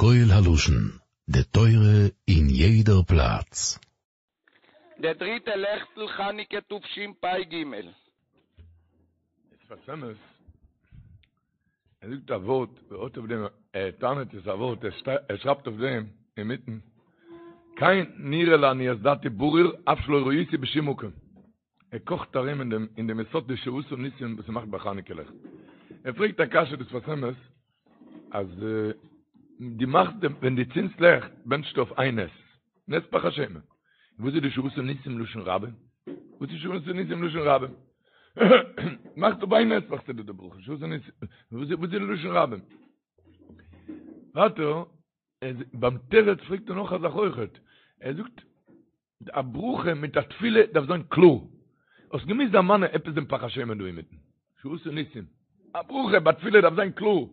קול הלשון, די תורה אין יעדער פלאץ. דער דריטע לעכטל חנוכה תשפ"ג. שפת אמת, ער זאגט א ווארט, ער האט אויף דעם, ער טענה'ט עס א ווארט, ער שרייבט אויף דעם אינמיטן, כן נראה לעניות דעתי ברור אף שלא ראיתי בשום מקום. ער קאכט ארום אין דעם אין דעם יסוד די שעשה ניסים וואס מ'מאכט ביי חנוכה לעכט. ער פרעגט א קשיא דער שפת אמת אז דו מאכסט דעם ווען דו צינדסט לעכט בענטשסטו אויף איין נס, נס פך השמן. וואס איז די שעשה ניסים לשון רבים? וואס איז שעשה ניסים לשון רבים? מאכסט אויף איין נס מאכסטו די ברכה שעשה ניסים וואס איז לשון רבים? ווייטער ביים תירוץ פרעגט ער נאך א זאך אויכעט, ער זאגט א ברכה מיט א תפילה דארף זיין קלאר. האסט געמוזט דערמאנען עפעס דעם פך השמן דא אינמיטן. שעשה ניסים. א ברכה ביי תפילה דארף זיין קלאר.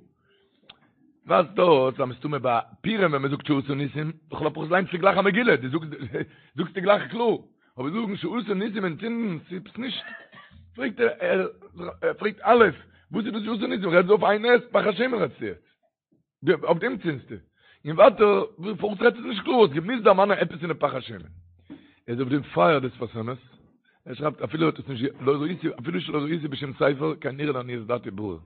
ווייזט אויס אז מסתמא ביי פורים ווען מ'זאגט שעשה ניסים, לכל הפחות ליינסטו גלייך א מגילה, דו זאגסט זאגסטו גלייך קלאר. אבער זאגן שעשה ניסים און צינדן ס'איז נישט. פרעגט ער, ער פרעגט א', וואס איז דאס שעשה ניסים? רעדסט דא אויף איין נס, פך השמן רעדסטו יעצט. אויף דעם צינדסטו. און ווייטער, פארוואס רעדסטו עס נישט קלאר? האסט געמוזט דערמאנען עפעס אין די פך השמן. ער איז אויף דעם פייער דער שפת אמת. ער שרייבט אפילו האט עס נישט לא ראיתי אפילו שלא ראיתי בשום ספר כן נראה לעניות דעתי ברור.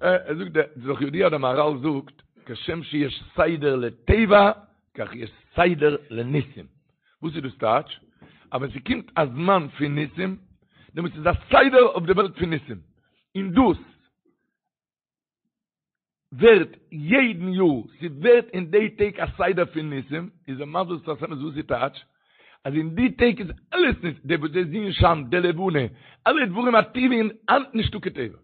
ער זאגט דער ס'איז דאך ידוע דער מהרל זאגט כשם שיש סדר לטבע כך יש סדר לניסים. וואס איז דאס טייטש? אז ווען ס'קומט א זמן פון ניסים, דעמאלטס איז א סדר אויף די וועלט פון ניסים. און דאס ווערט יעדן יאר, ס'ווערט אין די טעג א סדר פון ניסים, איז ער מסביר שפת אמת וואס איז טייטש, אז אין די טעג איז אלעס ניס, די וואס די זון שיינט, די לבנה, אלע דברים הטבעיים היינט נישטא קיין טבע,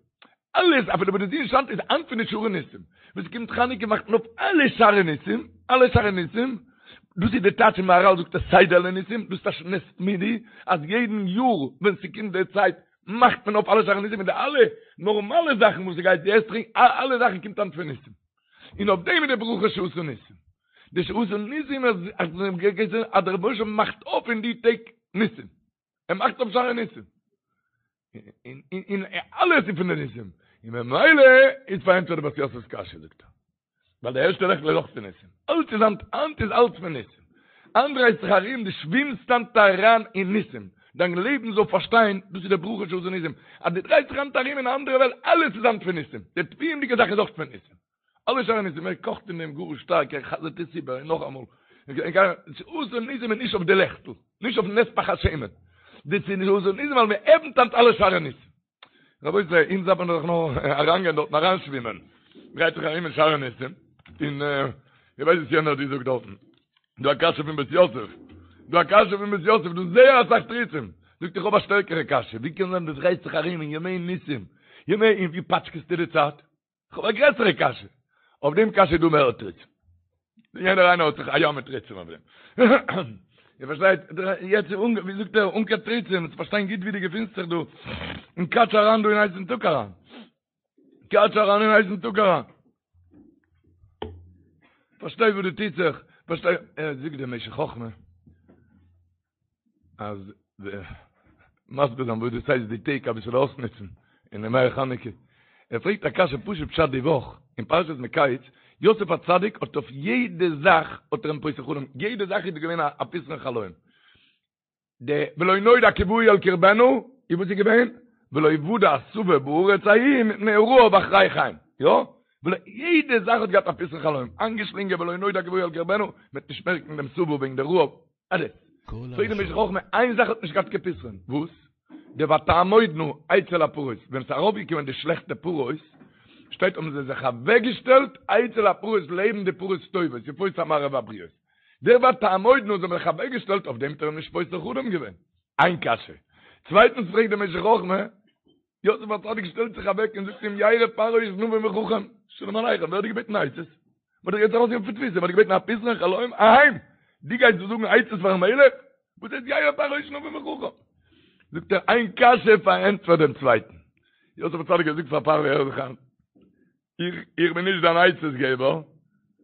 אלעס אפילו וואס די זון שיינט איז היינט פון די שערי ניסים, ווען ס'קומט חנוכה מאכט מען אויף אלע שערי ניסים, אלע שערי ניסים, דאס איז די טייטש אין מהרל זאגט ער סדר לניסים, דאס טייטש נס תמידי, אז יעדן יאר ווען ס'קומט די צייט מאכט מען אויף אלע שערי ניסים און די אלע נארמאלע זאכן וואס ס'גייט די עסט טרינק אלע זאכן קומט היינט פון ניסים און אויף דעם איז די ברכה שעשה ניסים די שעשה ניסים אז אז דער רבונו של עולם מאכט אויף אין די טעג ניסים ער מאכט אויף שערי ניסים און און אלעס איז פון די ניסים און ממילא איז פארענטפערט די בית יוסף'ס קשיא זאגט ער ווייל די ערשטע לעכטל איז אויך פון ניסים. אלץ איז היינט, היינט איז אלץ פון ניסים. היינט דרייסט זיך ארום, דו שווימסט היינט אריין אין ניסים. דיין לעבן זאל פארשטיין, דאס איז די ברכה שעשה ניסים. אז דו דרייסט זיך היינט ארום אין א אנדערע וועלט, אלעס איז היינט פון ניסים. די טבעיות'דיגע זאך איז אויך פון ניסים. אלע שערי ניסים, ער קאכט אין דעם גאר שטארק, ער חזר'ט עס איבער און נאכאמאל. שעשה ניסים איז נישט אויף די לעכטל, נישט אויפן נס פך השמן. דאס איז שעשה ניסים ווייל מען עפנט היינט אלע שערי ניסים. רבותי, אונז דארף מען דאך נאר אריינגיין דארטן אריינשווימען. דרייט זיך ארום אין שערי ניסים, און איך ווייס וואס יענער האט געזאגט דארטן. דא א קשיא פון בית יוסף. דא א קשיא פון בית יוסף, דא זייער אסאך תירוצים. זאגט איך האב א שטערקערע קשיא, ווי קען זיין דו דרייסט זיך ארום אין ימי ניסים, ימי, און ווי פאטשקעסטו די צייט? כ'האב א גרעסערע קשיא. אויף דעם קשיא איז דא מער תירוצים. יעדער איינער האט זיך א ים מיט תירוצים אויף דעם. איר פארשטייט? יעצט איז אנ, ווי זאגט ער, אן קיין תירוצים, צו פארשטיין גוט ווי דו געפינסט זיך דא. און קאטש אריין דא אין הייסן טאג אריין. קאטש אריין אין הייסן טאג אריין. פארשטיי וואס דא טוט זיך. פארשטיי, ער זאגט דער משך חכמה. אז מסביר זיין וואס דאס הייסט די טעג אביסל אויסנוצן אין ימי חנוכה. ער פרעגט א קשיא פשוט פשט די וואך אין פרשת מקץ, יוסף הצדיק האט אויף יעדע זאך האט ער אים פותר חלום, יעדע זאך איז געווען א פתרון חלום. די ולא נודע כי באו אל קרבנה, איז וואס איז געווען? ולא יודע השבע בארץ ההיא מפני הרעב אחרי כן. יא? ולא יעדע זאך האט געהאט א פתרון חלום, איינגעשלינגען ולא נודע כי באו אל קרבנה, מ'וועט נישט מערקן דעם שובע וועגן די רעב, אלעס. פרעגט דער משך חכמה, איין זאך האט נישט געהאט קיין פתרון, וואס? די ותעמודנה אצל הפרות, ווען ס'איז ארויפגעקומען די שלעכטע פרות, שטייט האבן זיי זיך אוועקגעשטעלט אצל הפרות לעבן די פרות טובות, יפות המראה והבריאות. דער ותעמודנה זיי האבן זיך אוועקגעשטעלט, אויף דעם האט ער אים נישט פותר חלום געווען. איין קשיא. צווייטנס פרעגט דער משך חכמה, יוסף הצדיק שטעלט זיך אוועק און זאגט אים ירא פרעה איש נבון וחכם, שלום עליכם, ווער האט דיר געבעטן עצות? מ'האט דיך יעצט ארויסגענומען פון תפיסה, מ'האט דיר געבעטן א פתרון חלום אהיים, דו גייסט דא זאגן עצות פארן מלך? וואס הייסט ירא פרעה איש נבון וחכם? זאגט ער, איין קשיא פארענטפערט דעם צווייטן. יוסף הצדיק האט געזאגט פאר פרעה, הער זיך איין, איך איך בין נישט דיין עצות געבער,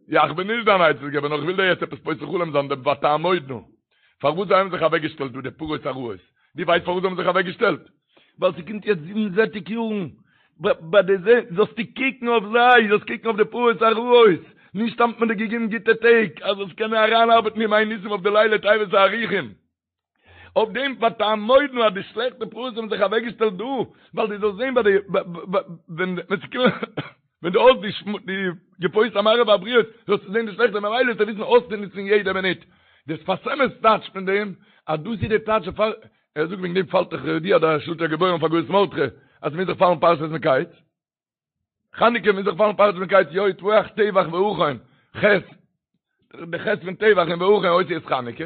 יא איך בין נישט דיין עצות געבער, נאר איך וויל דיר יעצט עפעס פותר חלום זיין דעם ותעמודנה. פארוואס זיי האבן זיך אוועק געשטעלט דא די פרות הרעות? דו ווייסט פארוואס זיי האבן זיך אוועק געשטעלט? ווייל ס'קומט יעצט זיבן זעטיג יארן, ביי די זע זאלסטו קוקן אויף זיי, זאלסט קוקן אויף די פרות הרעות, נישט סתם האט מען דיר געגעבן גוטע טעג, אז זאלסט קענען אריינארבעטן ימי ניסים אויף די לילי טבת הארוכים. אויף דעם ותעמודנה אז די שלעכטע פרעות האבן זיך אוועקגעשטעלט דא, ווייל דו זאלסט זען ביי די ווען ווען דו האסט די מגפות המראות והבריאות זאלסטו זען די שלעכטע ממילא זאלסטו וויסן אויסצונוצן יעדע מינוט. דער שפת אמת טייטשט פון דעם אז דאס איז די טייטש דערפאר ער זאגט וועגן דעם פאלט דאך ידוע דער שלטי הגיבורים אויף הגהות מרדכי אז ס'מוז זיך פאלן פרשת מקץ. חנוכה מוז זיך פאלן פרשת מקץ יא טבוח טבח והכן ח' די ח' פון טבח און והכן אותיות חנוכה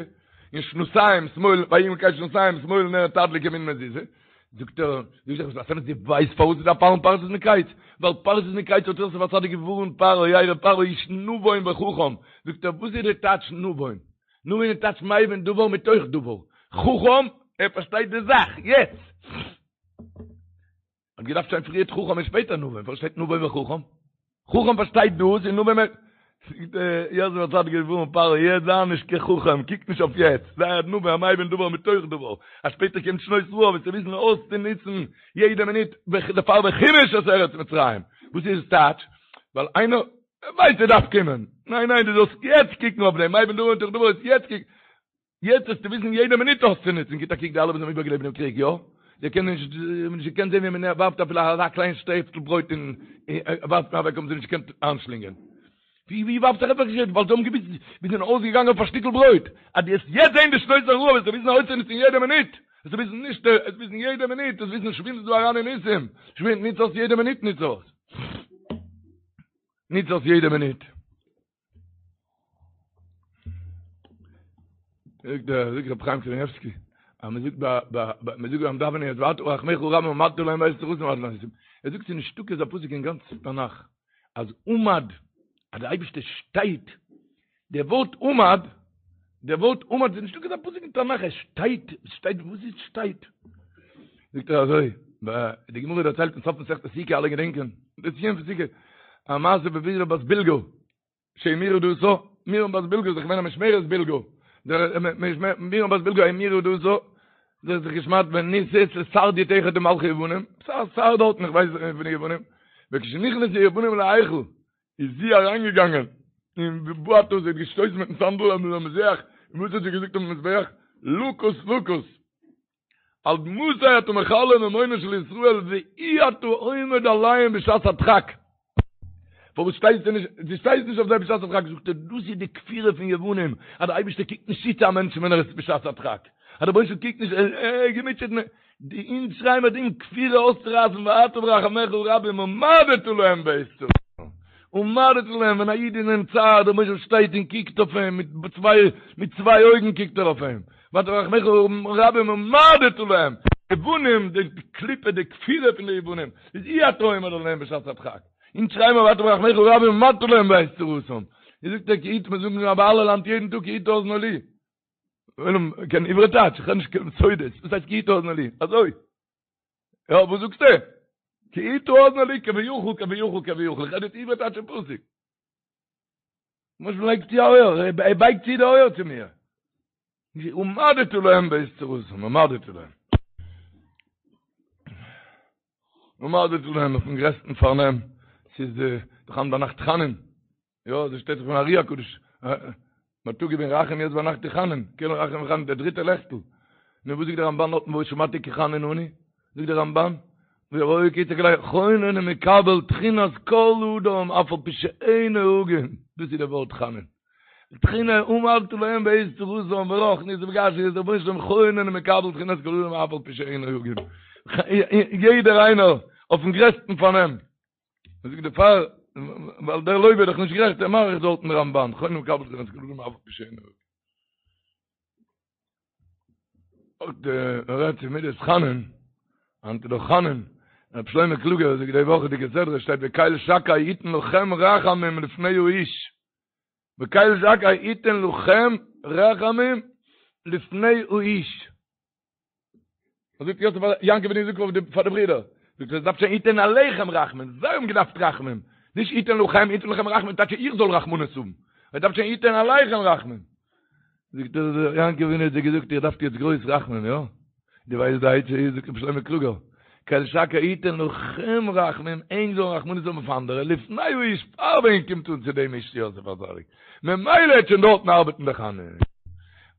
און שנתיים שמאל ויהי מקץ שנתיים שמאל נר תדליק ימין מזוזה זאגט ער זאגט דער שפת אמת דו ווייסט פארוואס ס'דארף פאלן פרשת מקץ ווייל פרשת מקץ האט יוסף הצדיק געווארנט פרעה ירא פרעה איש נבון וחכם זאגט ער וואס איז די טייטש נבון נבון איז טייטש מבין דבר מתוך דבר חכם ער פארשטייט די זאך יעצט האט געדארפט שטיין פריערט חכם און שפעטער נבון, פארוואס שטייט נבון וחכם? חכם פארשטייט דאס און נבון זאגט יוסף הצדיק געווארנט פרעה יעצט זיי נישט קיין חכם קוק נישט אויף יעצט זיי א נבון א מבין דבר מתוך דבר אז שפעטער קומט שנות רעב וועסטו וויסן אויסצונוצן יעדע מינוט דערפאר וחמש את ארץ מצרים וואס איז עס טייטש ווייל איינער ווייסט ער דארף קומען ניין ניין דו זאלסט יעצט קוקן אויף דעם מבין דבר מתוך דבר יעצט קוק יעצט וועסטו וויסן יעדע מינוט אויסצונוצן, גיט א קוק די אלע וואס האבן איבערגעלעבט דעם קריג, יא? זיי קענען נישט, זיי האבן נישט געקענט זען ווי מען ווארפט אפילו אזא קליין שטעפטל ברויט און ווארפט מען אוועק האבן זיי נישט געקענט איינשלינגען. ווי ווי ווארפט זיך עפעס געשעט ווייל זיי האבן געוויסט מיר זענען אויסגעגאנגען אויף א שטיקל ברויט, אז דו וועסט יעצט זען די שנות הרעב וועסטו וויסן אויסצונוצן יעדע מינוט, וועסטו וויסן נישט, וועסט וויסן יעדע מינוט, וועסט וויסן שווימסט דא אריין אין ניסים, שווים, נוץ אויס יעדע מינוט נוץ אויס. נוץ אויס יעדע מינוט. זאגט דער זאגט רב חיים קניבסקי אז מען זאגט ביי ביי מען זאגט ביים דאווענען יעצט ואתה רחמיך רבים עמדת להם בעת צרתם ער זאגט ס'איז נישטא אזא פסוק אין גאנץ תנך אז עמד אז דער אייבערשטער שטייט דער ווארט עמד דער ווארט עמד איז נישטא אזא פסוק אין תנך ער שטייט שטייט וואס איז שטייט זאגט ער אזוי די גמרא דערציילט אין סוף מסכת סוכה אלע געדענקען די סיום פון סוכה א מעשה בבלהה בת בלגה שהמירה דתה, מרים בת בלגה איז דאך געווען א משמרת בלגה, מרים בת בלגה המירה דתה, זי האט זיך געשמדט ונישאת לסרדיוט אחד ממלכי יוונים, א שר דארטן איך ווייס נישט פון די יוונים, וכשנכנסו יוונים להיכל איז זי אריינגעגאנגען און ובעטה זי האט געשטויסן מיטן סנדל אויפן מזבח, און וואס האט זי געזאגט אויפן מזבח? לקוס לקוס. עד מתי אתה מכלה ממונו של ישראל ואי אתה עומד עליהם בשעת הדחק? פארוואס שטייסטו נישט, דו שטייסט נישט אויף זיי בשעת הדחק? זאגט ער, דאס איז די כפירה פון יוונים, אז דער אייבערשטער קוקט נישט צו צו א מענטשן ווען ער איז בשעת הדחק, אז דער רבונו של עולם קוקט נישט, ער איז געמוטשעט, די אונז שרייען מיר דעם כפירה אויסצורייסן ואתה ברחמיך הרבים עמדת להם בעת צרתם, עמדת להם, ווען א איד איז אין צער, דער רבונו של עולם שטייט און קוקט אויף אים, מיט צוויי מיט צוויי אויגן קוקט ער אויף אים, ואתה ברחמיך הרבים עמדת להם, יוונים, די קליפה, די כפירה פון די יוונים, איז אי אתה עומד עליהם בשעת הדחק, אונז שרייען מיר ואתה ברחמיך הרבים עמדת להם בעת צרתם, ווי זאגט ער כי הטה, מיר זאגן ביי הלל היינט יעדן טאג כי הטה אזנו לי, עולם קען עברי טייטש, איך רעד נישט קיין סודות, וואס הייסט כי הטה אזנו לי? אזוי. יא, וואס זאגסטו? כי הטה אזנו לי כביכול, כביכול, כביכול. איך רעד יעצט עברי טייטש אין פסוק. וואס לייגט צו א אויער? ער בייגט צו די אויער צו מיר. עמדת להם בעת צרתם, עמדת להם. עמדת להם אויפן גרעסטן פארנעם. ס'איז דאך היינט ביינאכט חנון. יא, אזוי שטייט דאך פון ארי הקדוש. בייטאג געווען רחום יעצט ביינאכט איז חנון. קל רחום וחנון, דער דריטער לעכטל. נו, וואס זאגט דער רמבן דארטן וואו שמעתי כי חנון אני? זאגט דער רמבן, והיה כי יצעק אלי חונן ומקבל תחינת כל אדם אף על פי שאינו הגון. דאס איז דער ווארט חנון. תחינה עמדת להם בעת צרתם ברוחניות ובגשמיות, דער רבונו של עולם חונן ומקבל תחינת כל אדם אף על פי שאינו הגון. יעדער איינער אויפן גרעסטן פארנעם. מען זאגט דערפאר, ווייל דער לוה איז דאך נישט גערעכט, ער מאריכט דארטן רמבן, חונן ומקבל תחינת כל אדם אף על פי שאינו הגון. אויך דער רעדט צו מידת חנון, היינט איז דאך חנון, רב שלמה קלוגער זאגט די וואכעדיגע סדרה שטייט וקל שקי יתן לכם רחמים לפני האיש, וקל שקי יתן לכם רחמים לפני האיש. זאגט יוסף פאר יעקב אבינו זאגט פאר די פאר די ברידער זאגט ער דארף שטיין יתן עליכם רחמים זיי האבן געדארפט רחמים נישט יתן לכם יתן לכם רחמים טייטש איך זאל רחמנות האבן ער דארף שטיין יתן עליכם רחמים זאגט ער יעקב אבינו האט זיי געזאגט איר דארפט יעצט גרויס רחמים יא דו ווייסט די עצה איז זאגט רבי שלמה קלוגער. קל שקי יתן לכם רחמים, ענק זאלן רחמנות האבן אויף אנדערע, לפני האיש פאר ווען קומט אן צו דעם איש יוסף הצדיק, ממילא העט שוין דארטן ארבעטן די חנון.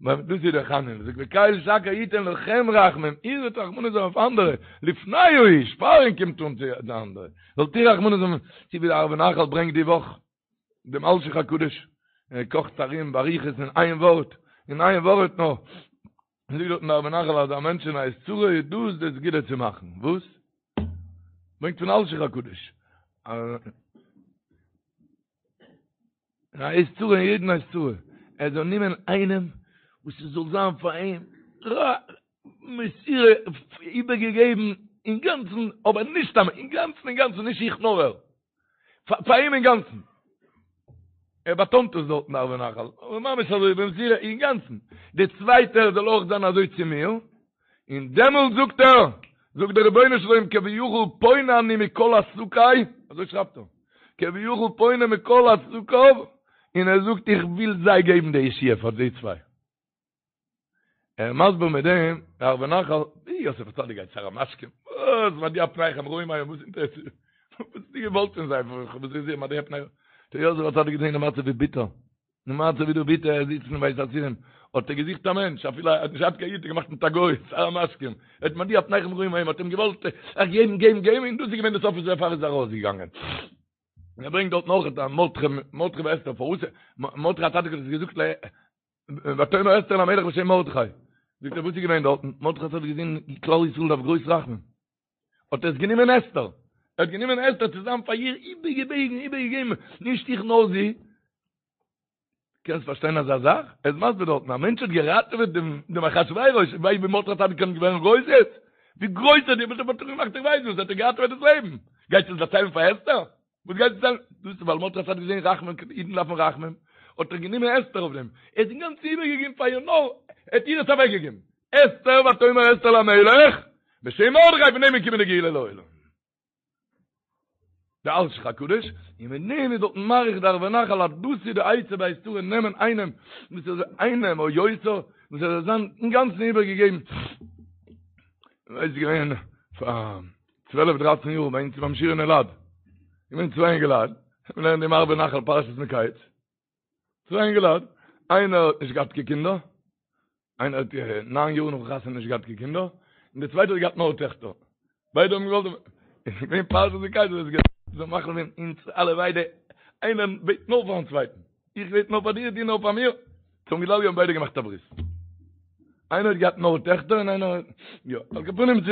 דאס איז דער חנון, זאגט וקל שקי יתן לכם רחמים, איר זאלט רחמנות האבן אויף אנדערע, לפני האיש פאר ענק קומט אן צו די אנדערע, זאלט איר רחמנות האבן, צו ווי דער ערבי נחל ברענגט די וואך דעם אלשיך הקדוש, ער קאכט ארום באריכות אין איין ווארט, אין איין ווארט נאר, זאגט דארטן דער ערבי נחל אז א מענטש אין עת צרה איז דאס די סגולה צו מאכן, וואס? ברענגט פון אלשיך הקדוש, אין א עת צרה אין יעדן עת צרה, ער זאל נעמען איינעם וואס עס זאל זיין פאר אים מסירה איבערגעגעבן אינגאנצן, אבער נישט סתם אינגאנצן אינגאנצן נישט איך נאר ער, פאר אים אינגאנצן. ער באטאנט עס דארטן ערבי נחל, אבער ממש אזוי במסירה אינגאנצן. דער צווייטער זאל אויך זיין אזוי צו מיר, און דעמאלט זאגט ער, זאגט דער רבונו של עולם כביכול פונה אני מכל עסקיי, אזוי שרייבט ער, כביכול פונה מכל עסקיו, און ער זאגט איך וויל זיי געבן די ישועה פאר די צוויי. ער מסביר מיט דעם, דער ערבי נחל, ווי יוסף הצדיק גייט שר המשקים, וואס מדוע פניכם רעים היום, וואס אינטערעסירט, וואס האסטו געוואלט פון זיי, וואס איז מדוע פניכם, דער יוסף הצדיק געזען די מצב ווי ביטער, די מצב ווי דא ביטער, ער זיצט אין בית האסירים, האט ער געזוכט א מענטש, אפילו ער האט נישט געהאט קיין איד, האט ער געמאכט מיט א גוי, שר המשקים, ער האט מדוע פניכם רעים היום, האט אים געוואלט געבן, געבן, געבן, און דאס איז געווען די סוף וואס דערפאר איז ער ארויסגעגאנגען. און ער ברענגט דארט נאך אז מרדכי, מרדכי ואסתר, פארוואס, מרדכי הצדיק האט עס געזאגט ל. ותאמר אסתר למלך בשם מרדכי, זאגט ער וואס איז געווען דארטן, מרדכי האט געזען כלל ישראל דארף גרויס רחמים, האט ער עס גענומען אסתר, ער האט גענומען אסתר צו זיין פאר איר איבערגעבעגן, איבערגעגעבן, נישט איך נאר זי, קענסט פארשטיין אזא זאך? ער איז מסביר דארטן, א מענטש האט געראטעוועט דעם דעם אחשורוש, ווייסט ווי מרדכי הצדיק קען ווערן גרויס יעצט? ווי גרויס ער האט געמאכט איך ווייס וואס, האט ער געראטעוועט דאס לעבן, גייסט עס דערציילן פאר אסתר? וואס גייט זיין? דאס איז ווייל מרדכי האט געזען רחמים, אידן דארפן רחמים, האט ער גענומען אסתר אויף דעם, ער האט אינגאנצן איבערגעגעבן פאר איר נאר, ער האט איר עס אוועקגעגעבן, אסתר ותאמר אסתר למלך, בשם מרדכי פון דעם איז געקומען די גאולה לעולם. די אלשיך הקדוש, און מיט דעם איז דארטן מאריך דער ערבי נחל אז דאס איז די עצה בעת צרה נעמען איינעם וואס איז איינעם או יותר וואס ער זאל זיין אינגאנצן איבערגעגעבן, איז געווען פאר צוועלף דרייצן יאר ביי אונז ביים שיעור אין אלעד, געווען צוויי אינגעלייט, מיר לערנען דעם ערבי נחל פרשת מקץ, צוויי אינגעלייט, איינער האט נישט געהאט קיין קינדער, איינער האט ניין יאר נאך חתונה נישט געהאט קיין קינדער, און דער צווייטער האט געהאט נאר טעכטער, ביידע האבן געוואלט, איז געווען פרשת מקץ, איז געווען, זיי מאכן ווען אונז אלע ביידע, איינער בעט נאר פארן צווייטן, איך בעט נאר פאר דיר, דו נאר פאר מיר, צום גדלי' האבן ביידע געמאכט א ברית. איינער האט געהאט נאר טעכטער און איינער יא, על כל פנים צו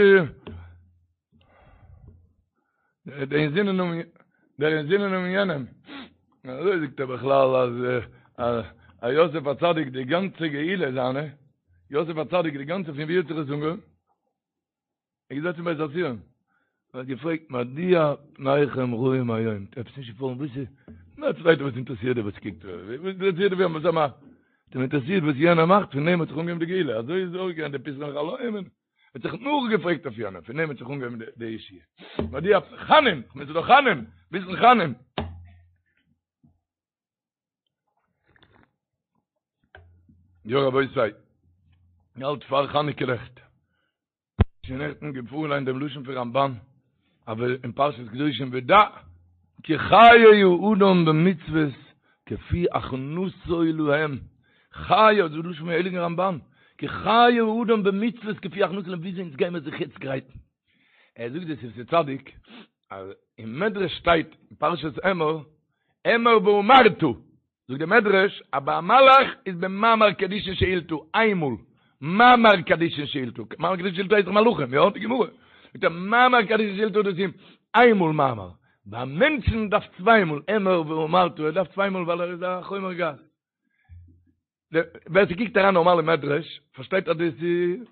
דער אינזינען האבן דער אינזינען האבן יענעם. אזוי זאגט ער בכלל אז אז יוסף הצדיק די גאנצע גאולה זיינע, יוסף הצדיק די גאנצע פון ווי האט זיך עס אנגעהויבן? ער איז געזעצן בית האסורים, ער האט געפרעגט מדוע פניכם רעים היום, עפעס נישט געפאלן, וואס איז, נאר צווייטע וואס אינטערעסירט דיר וואס קוקט, וואס אינטערעסירט דיר וואס ער מאכט, האט אים אינטערעסירט וואס יענער מאכט, פון דעם האט זיך אנגעהויבן די גאולה, אזוי איז אויך געווען די פתרון חלום, ער האט זיך נאכגעפרעגט אויף יענעם, פון דעם האט זיך אנגעהויבן די ישועה, מדוע, חנון, כ'מיין ס'איז דאך חנון, ביסל חנון. יא רבותי, מ'האלט פאר חנוכה לעכט. שוין נעכטן געפארליינט דעם לשון פון רמבן, אבער אין פרשת קדושים ודע כי חיי האדם במצוות כפי הכנתו להם, חיי, אזוי לשון פון הייליגן רמבן, כי חיי האדם במצוות כפי הכנתו להם, וויאזוי אונז גיימער זיך יעצט גרייטן. ער זאגט דער שפתי צדיק, אז אין מדרש שטייט אין פרשת אמור, אמור ואמרת, זאגט דער מדרש אז ביי א מלאך איז במאמר קדישין שאילתא איינמאל, מאמר קדישין שאילתא, מאמר קדישין שאילתא הייסט דאך מלאכים, יא? די גמרא זאגט ער מאמר קדישין שאילתא דאס איז איינמאל מאמר, ביי מענטשן דארף צוויי מאל, אמור ואמרת, ער דארף צוויי מאל ווייל ער איז א חומר גס. ווער ס'קוקט אריין נארמאל אין מדרש, פארשטייט אז דאס איז,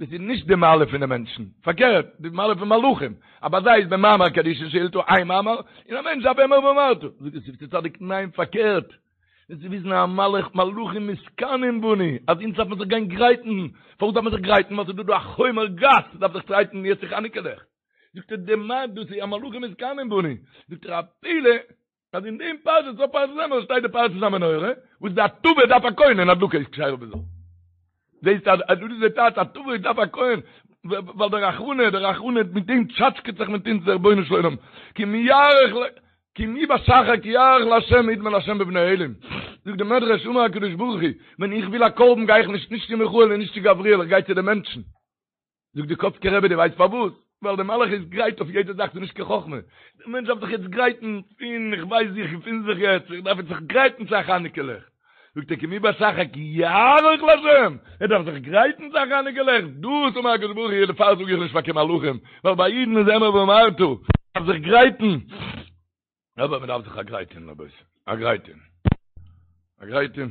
דאס איז נישט די מעלה פון די מענטשן, פארקערט, די מעלה פון מלאכים, אז ביי זיי איז במאמר קדישין שאילתא איין מאמר, און א מענטש דארף אמור ואמרת. זאגט דער שפתי צדיק, ניין פארקערט, דאס איז וויסן א מלאך, מלאכים מתקנאים בנו, אז אונז דארף מען זיך גיין גרייטן, פארוואס דארף מען זיך גרייטן? ווייל ס'איז דא דא א חומר גס, מ'דארף זיך גרייטן יעצט צו חנוכה לעכט. זאגט ער, די מה דאס איז א מלאכים מתקנאים בנו, זאגט ער, א פלא, אז אין דעם פרשה, סוף פרשת אמור, שטייט די פרשת המנורה, וואס די הטבה דארף א כהן און הדלקה איז כשרה בזר. זעהסט אז דאס איז די טייטש הטבה דארף א כהן. ווייל דער רחמנא, דער רחמנא מיט דעם טשאטשקעט זיך מיט אונז דער רבונו של עולם, כי אם יערך ל, כי מי בשחר כי יערך לה' ידמה לה' בבני אלים. זאגט די מדרש אמר הקדוש ברוך הוא, ווען איך וויל א קרבן גיי איך נישט נישט צו מיכאל און נישט צו גבריאל איך גיי צו די מענטשן. זאגט די קאצקער רבי דו ווייסט פארוואס? ווייל די מלאך איז גרייט אויף יעדע זאך ס'איז נישט קיין חכמה. די מענטש דארף זיך יעצט גרייטן פון איך ווייס ווי איך געפין זיך יעצט איך דארף יעצט זיך גרייטן צו א חנוכה לעכט. זאגט ער כי מי בשחר כי יערוך לה' ער דארף זיך גרייטן צו א חנוכה לעכט דאס אמר הקדוש ברוך הוא דערפאר זאג איך נישט פאר קיין מלאכים ווייל ביי אידן איז אמור ואמרת דארף זיך גרייטן. אבער מען דארף זיך א גרייט טון רבותי, א גרייט טון, א גרייט טון.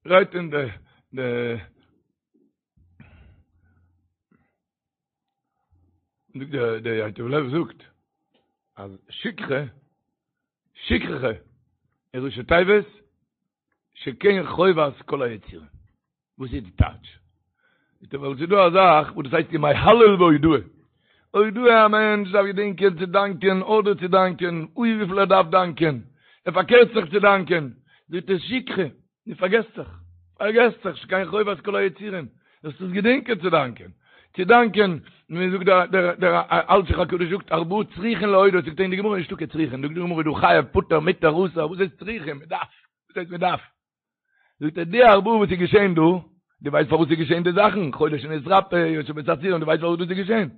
גרייט טון די די זאגט דער דער ייטב לב זאגט אז שכחה שכחה איז ראשי תיבות שכן חובת כל היצורים. וואס איז די טייטש? זאגט ער ווייל ס'איז דא א זאך וואס דאס הייסט ימי הלל והודאה. הודאה א מענטש דארף געדענקען צו דאנקען אדער צו דאנקען, אוי וויפיל ער דארף דאנקען, ער פארקערט זיך צו דאנקען, זאגט ער שכחה, דו פארגעסט זיך, פארגעסט זיך, שכן חובת כל היצורים, זאלסט עס געדענקען צו דאנקען, צו דאנקען, ווי זאגט דער דער דער אלשיך הקדוש זאגט ארבעה צריכין להודות, זאגט ער אין די גמרא נישטא קיין צריכין, זאגט די גמרא דא חייב פטור מותר אסור, וואס הייסט צריכין, מען דארף, וואס הייסט מען דארף? זאגט ער די ארבעה וואס איז געשען דא, דו ווייסט פארוואס איז געשען די זאכן, חולה שנתרפא, יושב בית האסורין, דו ווייסט פארוואס דאס איז געשען?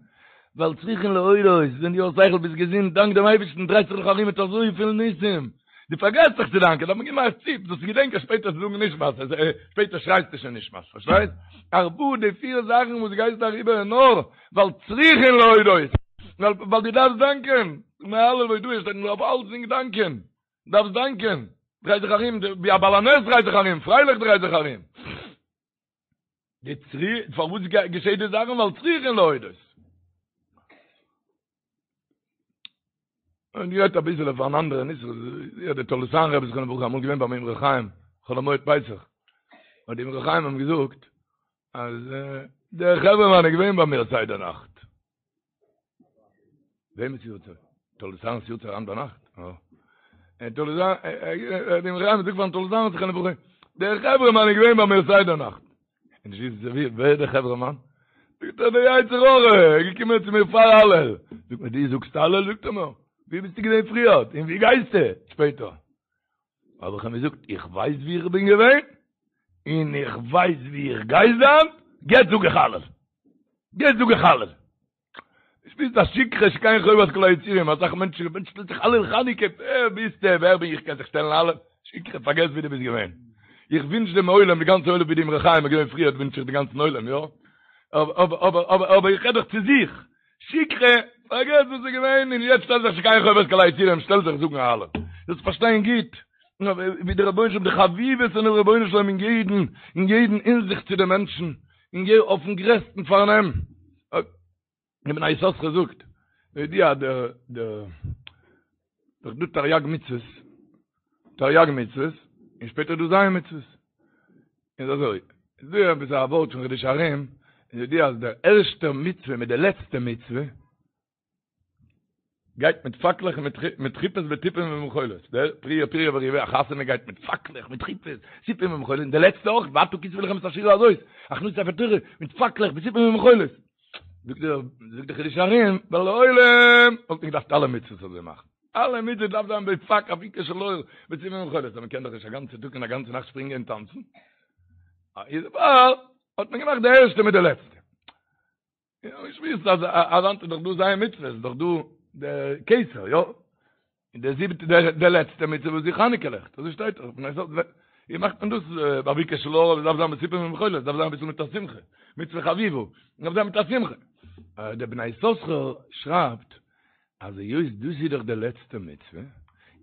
ווייל צריכין להודות, ווען דו האסט שכל ביסט געזונט, דאנק דעם אייבערשטן, דרייסט זיך נאך ארום מיט אזויפיל ניסים, דו פארגעסט זיך צו דאנקען, דארף מען געבן א ציפ, זאלסט געדענקען שפעטער צו זאגן נשמת, שפעטער שרייסטו שוין נשמת, פארשטייסט? ארבעה די פיר זאכן וואס גייסט אריבער איז נאר ווייל צריכין להודות, ווייל דו דארפסט דאנקען, ימי הלל והודאה שטייט מען דארף אלצדינג דאנקען. דארפסט דאנקען, דריי זיך ארום, ווי א בעל הנס דריי זיך ארום, פרייליך דריי זיך ארום. די צרי, פארוואס געשעט די זאכן? ווייל צריכין להודות. און גערעדט אביסעלע פאר אן אנדערע נושא, יא דער תולדות אהרן רבי זכרונו לברכה אמאל געווען ביים אמרי חיים, חול המועד פסח, האט די אמרי חיים אים געזאגט, אז דער חברה מאן איז געווען ביי מיר סדר נאכט. וועמענס יארצייט? תולדות אהרן'ס יארצייט היינט ביינאכט? אה. תולדות אהרן, דער אמרי חיים זאגט פארן תולדות אהרן זכרונו לברכה, דער חברה מאן איז געווען ביי מיר סדר נאכט. און נישט וויסן ווי, ווער איז דער חברה מאן? זאגט ער, דער יצר הרע, איז געקומען צו מיר פאר הלל. זאגט מיר, דו זאגסט הלל? זאגט ער מיר, ווי ביסטו געווען פריער? און ווי גייסטו שפעטער? האב איך אים געזאגט, איך ווייס ווי איך בין געווען, און איך ווייס ווי איך גיי זיין, יעצט זאג איך הלל. יעצט זאג איך הלל. שפירסט א שכחה שכן חובת כל היצורים, אסאך מענטשן, מענטש שטעלט זיך הלל חנוכה, ווער ביסטו, ווער בין איך קען זיך שטעלן הלל, שכחה, פארגעס ווי דו ביסט געווען. איך ווינטש דעם עולם, די גאנצע עולם ווי די אמרי חיים איז געווען פריער ווינטש איך די גאנצן עולם, יא? אבער אבער אבער אבער איך רעד דאך צו זיך. שכחה, פארגעס וואס איז געווען, און יעצט שטעל זיך שכן חובת כל היצורים, שטעל זיך זאגן הלל. זאלסט פארשטיין גוט, ווי דער רבונו של עולם, די חביבות פונעם רבונו של עולם אין יעדן, אין יעדן הינזיכט צו די מענטשן, און גיי אויפן גרעסטן פארנעם. דער בני יששכר זאגט, ידוע דער דער דאך דא תריג מצוות, תריג מצוות, און שפעטער דא ז' מצוות. איז אזוי, איז דא עפעס א ווארט פון חידושי הרי"ם, איז ידוע אז דער ערשטער מצוה מיט די לעצטע מצוה, גייט מיט פאקלעך און מיט חופות ותופים ומחולות, דער פריה פריה ורביה א חתונה גייט מיט פאקלעך מיט חופות, תופים ומחולות, און די לעצטע אויך, ועתה כתבו לכם את השירה הזאת, הכנסת ספר תורה, מיט פאקלעך ותופים ומחולות. זאגט דער זאגט דער חידושי הרי"ם, ווייל לעולם וואלט מען געדארפט אלע מצוות אזוי מאכן. אלע מצוות דארף זיין בפאק אפיקה של אור ותופים ומחולות, אבער מען קען דאך נישט א גאנצע טאג און א גאנצע נאכט שפרינגען און טאנצן. איז דערפאר האט מען געמאכט די ערשטע מיט די לעצטע. יא, איך ווייס אז אז היינט איז דאך דא ז' מצוות, איז דאך דא דער כתר, יא? און דער זיבעטע דער דער לעצטע מצוה וואס איז חנוכה לעכט, אזוי שטייט דאך, פון אזוי ווי מאכט מען דאס באביקע של אור, עס דארף זיין בתופים ומחולות, עס דארף זיין אביסל מיט א שמחה, מצוה חביבה, עס דארף זיין מיט א שמחה. דער בני יששכר שרייבט אז היות דאס איז דאך די לעצטע מצוה,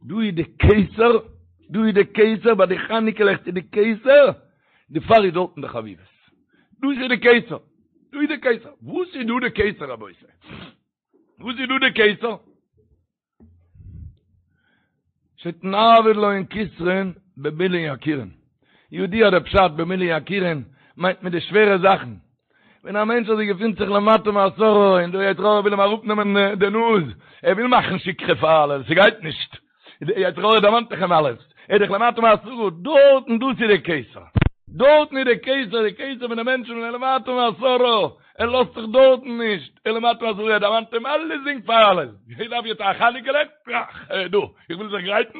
דא איז די כתר, דא איז די כתר, ביי די חנוכה לעכט איז די כתר, דערפאר איז דארטן די חביבות. דאס איז די כתר, דא איז די כתר. וואס איז דא די כתר רבותי? וואס איז דא די כתר? שטייט נעביד להון כתרין במילין יקירין. ידוע דער פשט במילין יקירין מיינט מיט די שווערע זאכן. ווען א מענטש אזוי געפינט זיך למטה מעשרה און דער יצר הרע וויל אים אראפנעמען די נאז, ער וויל מאכן שכחה פאר הלל, ס'גייט נישט. דער יצר הרע דערמאנט זיך אים אלעס. ער איז דאך למטה מעשרה, דארטן דאס איז די כתר, דארטן איז די כתר, די כתר פון די מענטשן ווען ער למטה מעשרה, ער לאזט זיך דארטן נישט, ער למטה מעשרה, ער דערמאנט אים אלעסדינג פאר אלעס, איך דארף יעצט א חנוכה לעכט, טראך, ער איז דא, איך וויל זיך גרייטן,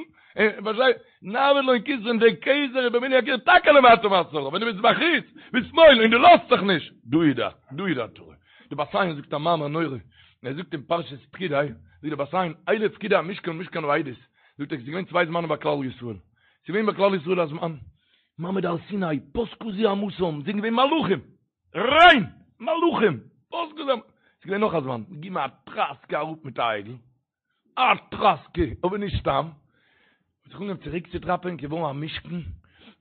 פארשטיי, נעבד לון כתרין, דער כתר איז במילוי הכתר טאקע למטה מעשרה, ווען דו ביסט בחוץ, בשמאל, און דו לאזט זיך נישט, דא איז דער, דא איז דער תורה. די בת עין זאגט א מאמר נורא, ער זאגט אין פרשת פקודי, זאגט די בת עין, אלה פקודי המשכן משכן העדות, זאגט ער, עס איז געווען צוויי זמנים ביי כלל ישראל, עס איז געווען ביי כלל ישראל א זמן, מעמד הר סיני, פסקה זוהמתם, זענען געווען מלאכים, ריין! מלאכים! פסקה זוהמתם, עס איז געווען נאך א זמן, געגעבן א טראסקע אראפ מיט א עגל, א טראסקע, אבער נישט סתם, האט זיך אנגעהויבן צוריק צו דראפען, געווארן א משכן,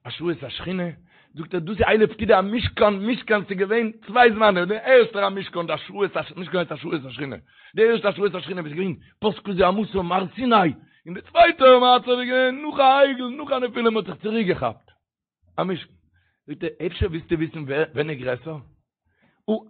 השראת השכינה, זאגט ער דאס איז אלה פקודי המשכן, משכן ס'איז געווען צוויי זמנים, די ערשטער המשכן, די השראת הש, משכן הייסט השראת השכינה, די ערשטע השראת השכינה וואס איז געווען פסקה זוהמתם הר סיני, און די צווייטע מצב איז געווען נאך א עגל, נאך א נפילה, מען האט זיך צוריק געכאפט. א משכן. זאגט ער, אפשר ווילסטו וויסן ווען איז גרעסער?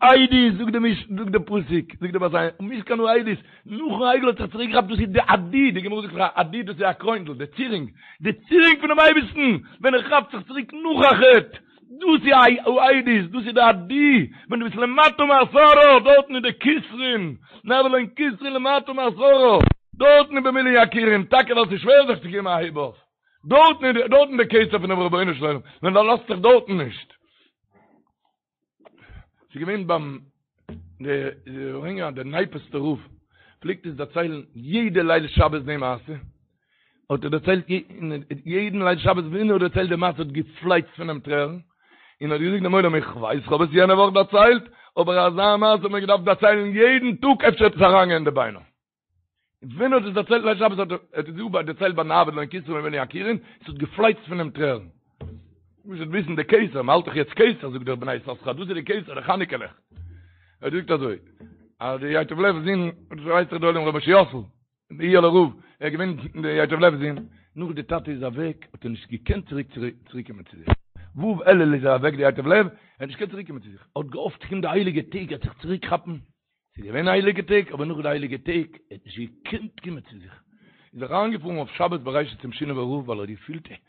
העדות, זאגט די מש, זאגט די פסוק, זאגט די בת עין, משכן העדות, נאכן עגל האט זיך צוריק געכאפט, דאס איז די עדי, די גמרא זאגט דאך עדי דאס איז א קרוינדל, די צירונג, די צירונג פונעם אייבערשטן, ווען ער כאפט זיך צוריק נאך א חטא, דאס איז העדות, דאס איז די עדי, ווען דו ביסט למטה מעשרה, דארטן איז די כתרין, נעבד לון כתרין למטה מעשרה, דארטן איז במילוי יכירון, טאקע ווייל ס'איז שווער זיך צו געבן א הייב אויף. דארטן איז דארטן די כתר פונעם רבונו של עולם, ווען ער לאזט זיך דארטן נישט. ס'איז געווען ביים די די נייפעסטע רב פלעגט עס דערציילן יעדע ליל שבת די מעשה, האט ער דערציילט יעדן ליל שבת ווען ער האט דערציילט די מעשה האט געפלייצט פון אים טרערן, און האט געזאגט דעם עולם איך ווייס כ'האב עס יענע וואך דערציילט, אבער אזא מעשה האט מען געדארפט דערציילן יעדן טאג אפשר וועט עס אריינגיין אין די ביינער. ווען ער האט עס דערציילט ליל שבת האט ער עס גאר דערציילט ביי נעבד לון כתרין במילוי יכירון, עס האט געפלייצט פון אים טרערן. מ'מוז וויסן די כתר, מ'האלט דאך יעצט כתר, זאגט דער בני יששכר, דאס איז די כתר, די חנוכה לעכט. ער זאגט אזוי, אז די ייטב לב'ס זון, דאס ווייסט דאך דער עולם ר' משה יוסל, די איהעלער רב, ער איז געווען די ייטב לב'ס זון, נאך די טאטע איז אוועק האט ער נישט געקענט צוריק צוריק קומען צו זיך. ו' אלול איז ער אוועק די ייטב לב, ער האט נישט געקענט צוריק קומען צו זיך, ער האט געהאפט ס'קומט די הייליגע טעג ער וועט זיך צוריק כאפן, ס'איז געווען הייליגע טעג, אבער נאך די הייליגע טעג, ער האט נישט געקענט קומען צו זיך. איז ער אריינגעפארן אויף שבת בראשית צום שינאווער רב, ווייל ער האט געפילט ער האט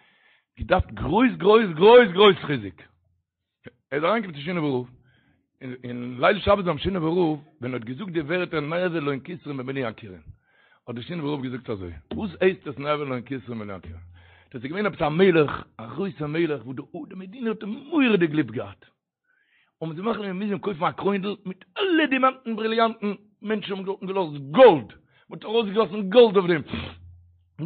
געדארפט גרויס גרויס גרויס גרויס חיזוק. ער איז אריינגעקומען צום שינאווער רב, און ליל שבת ביים שינאווער רב, ווען ער האט געזאגט די ווערטער נעבד לון כתרין במילוי יכירון, האט דער שינאווער רב געזאגט אזוי, וואס הייסט עס נעבד לון כתרין במילוי יכירון? דאס איז געווען עפעס א מלך, א גרויסער מלך, וואס די מדינה האט אים מורא'דיג ליב געהאט. האבן זיי מחליט געווען מ'מוז אים קויפן א קרוינדל מיט אלע דימאנטן בריליאנטן, מענטשן האבן דארטן געלאזט גאלד, מען האט ארויסגעגאסן גאלד אויף דעם,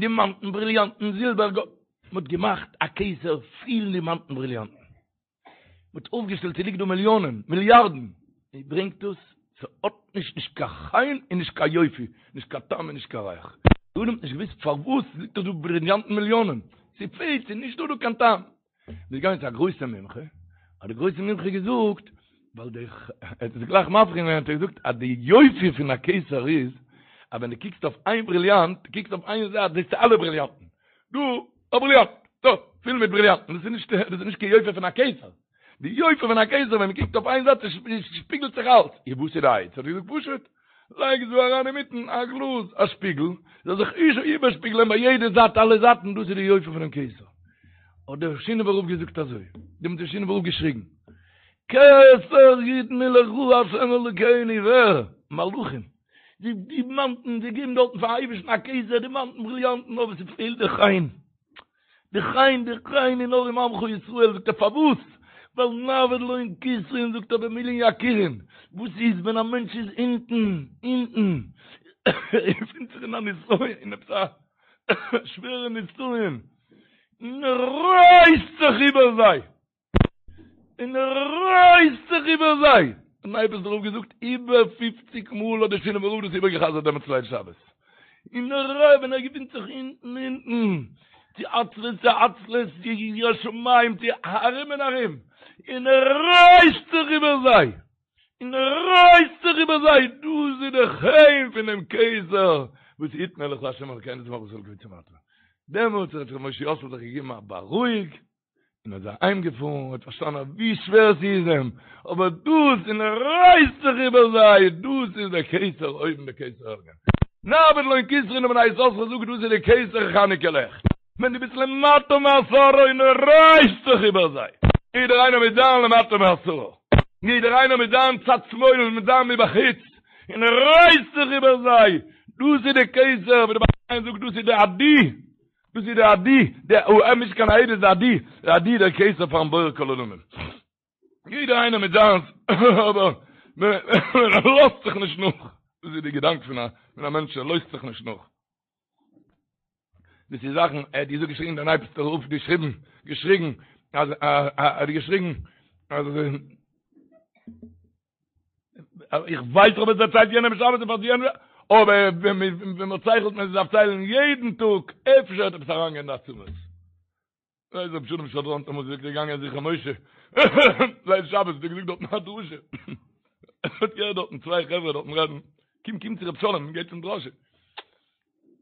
דימאנטן בריליאנטן זילבער גאלד, מען האט געמאכט א כתר פיל דימאנטן בריליאנטן, מען האט אויפגעשטעלט ס'ליגט דא מיליאנען, מיליארדן, מען ברענגט דאס, ס'האט נישט נישט קיין חן און נישט קיין יופי, נישט קיין טעם און נישט קיין ריח, די עולם האט נישט געוואוסט פארוואס ס'ליגט דאך דא בריליאנטן מיליאנען, ס'פעלט, ס'איז נישט דא דא קיין טעם. מ'איז געגאנגען צו א גרויסע מומחה, האט די גרויסע מומחה געזאגט, ווייל די, ער האט עס גלייך מבחין געווען, האט ער געזאגט אז די יופי פון א כתר איז, אז ווען דו קוקסט אויף איין בריליאנט, דו קוקסט אויף איין זייט זעסטו אלע בריליאנטן, דא, א בריליאנט, דא, פיל מיט בריליאנטן, דאס איז נישט, דאס איז נישט קיין יופי פון א כתר. די יופי פון א כתר ווען מ'קוקט אויף איין זייט שפיגלט זיך אלץ. און וואס איז די עצה? האט ער געזאגט פשוט, לייג דא אריין אינמיטן א גלאז, א שפיגל, זאל זיך איבערשפיגלען ביי יעדע זייט אלע זייטן, דאס איז די יופי פונעם כתר. האט דער שינאווער רב געזאגט אזוי, דעמאלט האט דער שינאווער רב געשריגן, כתר יתנו לך ה' אלוקינו, ווער? מלאכים, די דימאנטן, זיי געבן דארטן פארן אייבערשטן א כתר, דימאנטן, בריליאנטן, אבער ס'פעלט די חן. די חן, די חן איז נאר אין עמך ישראל, זאגט ער פארוואס? ווייל נעבד לון כתרין זאגט ער במילין יכירון, וואס איז ווען א מענטש איז אונטן, אונטן, ער געפינט זיך אין א נסיון, אין עפעס א שווערע נסיון, און ער רייסט זיך איבער זיי, און ער רייסט זיך איבער זיי! האט נייפעסטער רב געזאגט, איבער פופציג מאל האט דער שינאווער רב דאס איבערגעחזרט דעמאלטס ליל שבת. און ער רייסט ווען ער געפינט זיך אונטן אונטן, צו עצבות צו עצלות, צו יראת שמים, צו ארום און ארום, און ער רייסט זיך איבער זיי! און ער רייסט זיך איבער זיי! דאס איז די חן פון דעם כתר וואס יתנו לך ה' אלקינו את מלכות אלקי צמרת. דעמאלטס האט ר' משה יוסל זיך געגעבן א בארואיג, און איז אהיים געפארן, האט פארשטאנען אז ווי שווער ס'איז אים, אבער דאס, און ער רייסט זיך איבער זיי, דאס איז דער כתר אויבן דער כתר עליון. נעבד לון כתרין און בני יששכר זאגט דאס איז דער כתר חנוכה לעכט. ווען דו ביסט למטה מעשרה און רייסט זיך איבער זיי. יעדער איינער מיט זיין למטה מעשרה, יעדער איינער מיט זיין צד שמאל און מיט זיין מבחוץ, און רייסט זיך איבער זיי, דאס איז די כתר, ווי די בעל החיים זאגט דאס איז די עדי, דאס איז די עדי, די א נישט קיין עדות די עדי, די עדי דער כתר פארן בורא כל עולמים. יעדער איינער מיט זיינס, אבער מען לאזט זיך נישט נאך, דאס איז די געדאנק פון א מענטש ער לאזט זיך נישט נאך. דאס איז זאכן, ער האט געזאגט געשריגן דער נייפעסטער רב געשריבן, געשריגן, אז ער האט געשריגן, אז איך ווייס איך האב עס דערציילט יענעם שבת און פאר יענעם, אבער ווען מען ציילט מען דארף ציילן יעדן טאג, אפשר וועט עפעס אריינגיין אין די עצמות. ווייס רב שלום שדרן האט אמאל געזאגט געגאנגען זכרון משה ליל שבת האט ער געזאגט דארטן א דרשה האט געהערט דארטן צוויי חברה דארטן רעדן קום קום צו רב שלום גייט צום דרשה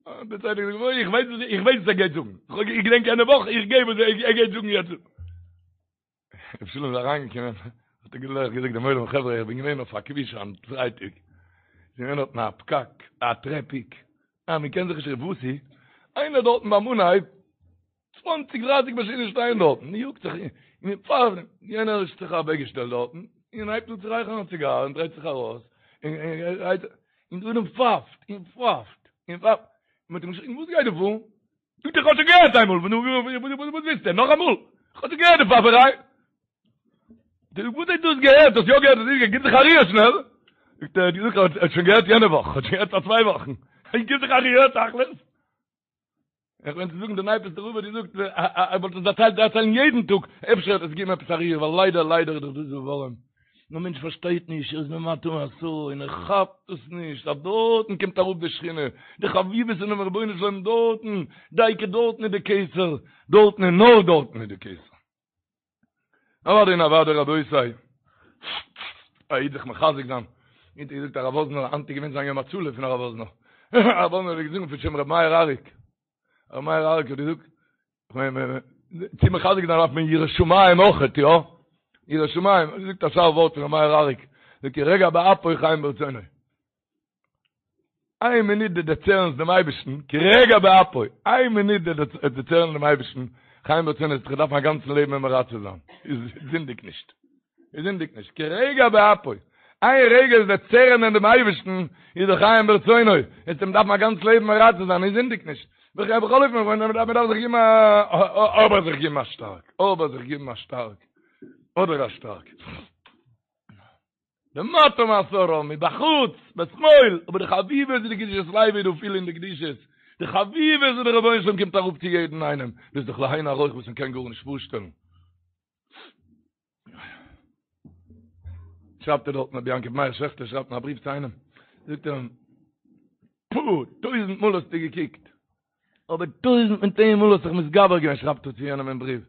דער צווייטער געזאגט אוי איך ווייס איך ווייס וואס ער גייט זאגן איך געדענק יענע וואך איך גיי וואס ער גייט זאגן יעצט רב שלום איז אריינגעקומען האט ער גלייך געזאגט דעם עולם חברה איך בין געווען אויף א כביש היינט פרייטאג איז געווען דארטן א פקק א טרעפיק אה מען קען זיך נישט וואס איז איינער דארטן ביים אנהייב צוואנציג דרייסיג מאשינען שטייען דארטן, מען יאגט זיך און מען פארט, יענער האט זיך אוועקגעשטעלט דארטן, און הייבט אן צו רייכערן א ציגאר און דרייט זיך ארויס, און און דער עולם פייפט און פייפט און פייפט, מען האט אים געשריגן וואס גייט דא פאר? זאגט ער איך האב שוין געהערט איינמאל, וואס ווילסטו נאכאמאל? איך האב שוין געהערט די פייפעריי. וואס האסטו דאס געהערט? האסט יא געהערט? האסט נישט געהערט? גיב זיך א ריר שנעל! זאגט ער, האט געזאגט ער האט שוין געהערט יענע וואך, האט שוין געהערט פאר צוויי וואכן, גיב זיך א ריר תכלית! איך מיין צו זאגן די נייפעסטע רב האט געזאגט ער וואלט עס דערציילט דערציילן יעדן טאג אפשר וועט עס געבן עפעס א ריר ווייל ליידער ליידער איז דאך דאס ווארעם נאר מענטש פארשטייט נישט ער איז למטה מעשרה און ער כאפט עס נישט אז דארטן קומט אראפ די שכינה די חביבות פונעם רבונו של עולם דארטן דייקא דארטן איז די כתר דארטן און נאר דארטן איז די כתר. אוודאי און אוודאי רבותי, א איד זיך מחזק זיין, ווי האט געזאגט הרב וואזנער, היינט איז געווען זיין יום הצלה פון הרב וואזנער, הרב וואזנער האט געזאגט פון שם רבי מאיר אריק, רבי מאיר אריק האט געזאגט, צו מחזק זיין דארף מען יראת שמים אויכעט, יא? יראת שמים, האט געזאגט א שארף ווארט פון רבי מאיר אריק, זאגט כי רגע באפו חיים ברצונו. איין מינוט דו דערצערנסט דעם אייבערשטן, כי רגע באפו, איין מינוט דו דערצערנסט דעם אייבערשטן, חיים ברצונו, וועסט דיך דארפן א גאנצן לעבן אים מרצה זיין, איז זינדיג נישט, איז זינדיג נישט, כי רגע באפו, איין רגע איז דערצערענען דעם אייבערשטן, איז דאך חיים ברצונו, וועסט אים דארפן א גאנץ לעבן מרצה זיין, איז זינדיג נישט, בכל אופן, מען דארף זיך געבן א, אבער זיך געבן א שטארק, אבער זיך געבן א שטארק, אדער א שטארק. למטה מעשרה, מבחוץ, בשמאל, אבער די חביבות איז די קדושת לוי דא פיל אין די קדושות, די חביבות וואס דער רבונו של עולם קומט אראפ צו יעדן איינעם, דאס איז דאך לאין ערוך וואס מען קען גארנישט פארשטעלן. שרייבט ער דארטן רבי יעקב מאיר שעכטער שרייבט אין א בריוו צו איינעם, זאגט ער אים, פו, טויזנט מאל האסטו געקוקט, אבער טויזנט מיט איין מאל האסט זיך מתגבר געווען, שרייבט ער צו יענעם אין בריוו,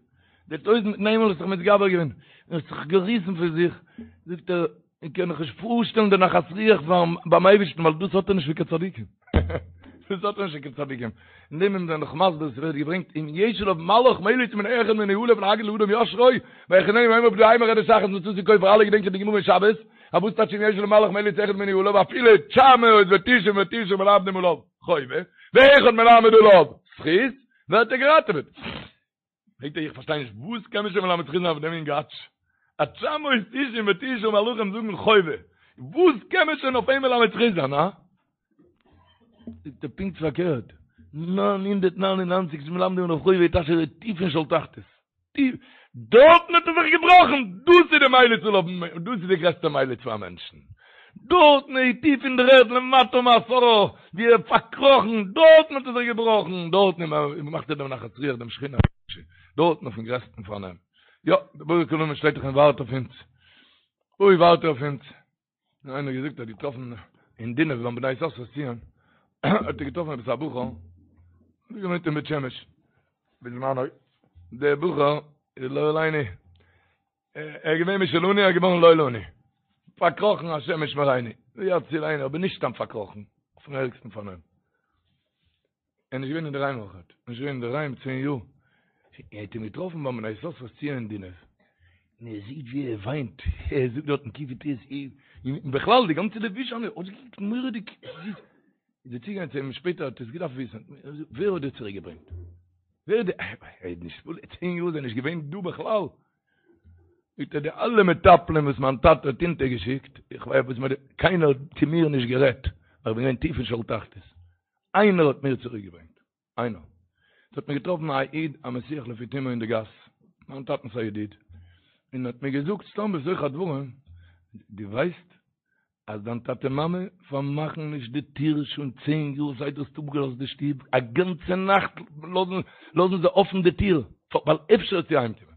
די טויזנט מיט איין מאל האסט זיך מתגבר געווען, און האסט זיך געריסן פון זיך, זאגט ער, איך קען מיך נישט פארשטעלן די נחת רוח ביים אייבערשטן, ווייל דאס האט ער נישט פון קיין צדיקים, דאס האט ער נישט פון קיין צדיקים, אין דעם איז מען דאך מסביר, עס ווערט געברענגט, אם יש עליו מלאך מליץ מן אחד מני אלף להגיד לאדם ישרו, ויחננו ויאמר פדעהו מרדת אחת מצאתי כופר, אלע געדענקען די גמרא אין שבת, אז וואס טייטש אם יש עליו מלאך מליץ אחד מני אלף, אפילו תשע מאות ותשעים ותשעה מלמדים עליו חובה, ואחד מלמד עליו זכות, ווערט ער געראטעוועט. פרעגט ער איך פארשטיי נישט וואס קען מען שוין מלמד זכות זיין אויף דעם אינגאטש? אז תשע מאות תשעים ותשעה מלאכים זאגן חובה, וואס קען מען שוין אויף אים מלמד זכות זיין, הא? זאגט ער פונקט פארקערט, 999 מלמדים עליו חובה טייטש ער איז טיף אין שאול תחתית. טיף, דארטן האט ער זיך געבראכן, דאס איז די מליץ עליו, דאס איז די גרעסטע מליץ פאר א מענטשן, דארטן איז טיף אין דער ערד למטה מעשרה, ווי ער האט פארקראכן, דארטן האט ער זיך געבראכן, דארטן מאכט ער דעם נחת רוח דעם שכינה הקדושה, דארטן אויפן גרעסטן פארנעם, יא, דער בורא כל עולמים שטייט דאך און ווארט אויף אונז, אוי ווארט ער אויף אונז. נאר איינער האט געזאגט ער האט געטראפן אין דינוב ביים בני יששכר'ס ציון האט ער געטראפן עפעס א בחור האט געוואוינט אין בית שמש בזמנו דער בחור איז לא עלינו ער איז געווען משלנו ער איז געווארן לא לנו פארקראכן השם ישמרינו ויצילנו אבער נישט סתם פארקראכן אויפן ערגסטן פארנעם ער איז נישט געווען אינדערהיים אויך, ער איז נישט געווען אינדערהיים צען יאר, ער האט אים געטראפן ביים בני יששכר'ס ציון אין דינוב, און ער זעט ווי ער וויינט, ער זאגט דארטן קי"ט, און בכלל די גאנצע לבוש זיינע האט אויסגעקוקט מורא'דיג זיס, איז ער צוגעגאנגען צו אים שפעטער האט ער עס געדארפט וויסן, ווער האט דיר צוריק געברענגט? ווער די, ער איז נישט פול, צען יאר איז ער נישט געווען דא בכלל. זאגט ער די אלע מטפלים וואס מיין טאטע האט אונטערגעשיקט, איך ווייס וואס מען, קיינער האט צו מיר נישט גערעדט, ווייל איך בין געווען טיף אין שאול תחתית. איינער האט מיר צוריקגעברענגט. איינער. עס האט מיר געטראפן א איד א מסיח לפי תומו אין די גאס, מיין טאטנ'ס א ידיד, און האט מיר געזאגט סתם בתוך הדברים, דו ווייסט אז דיין טאטע מאמע פארמאכן נישט די טיר שוין צען יאר זייט דו האסט אפגעלאזט די שטוב, א גאנצע נאכט לאזן זיי אפן די טיר, ווייל אפשר וועסטו אהיימקומען.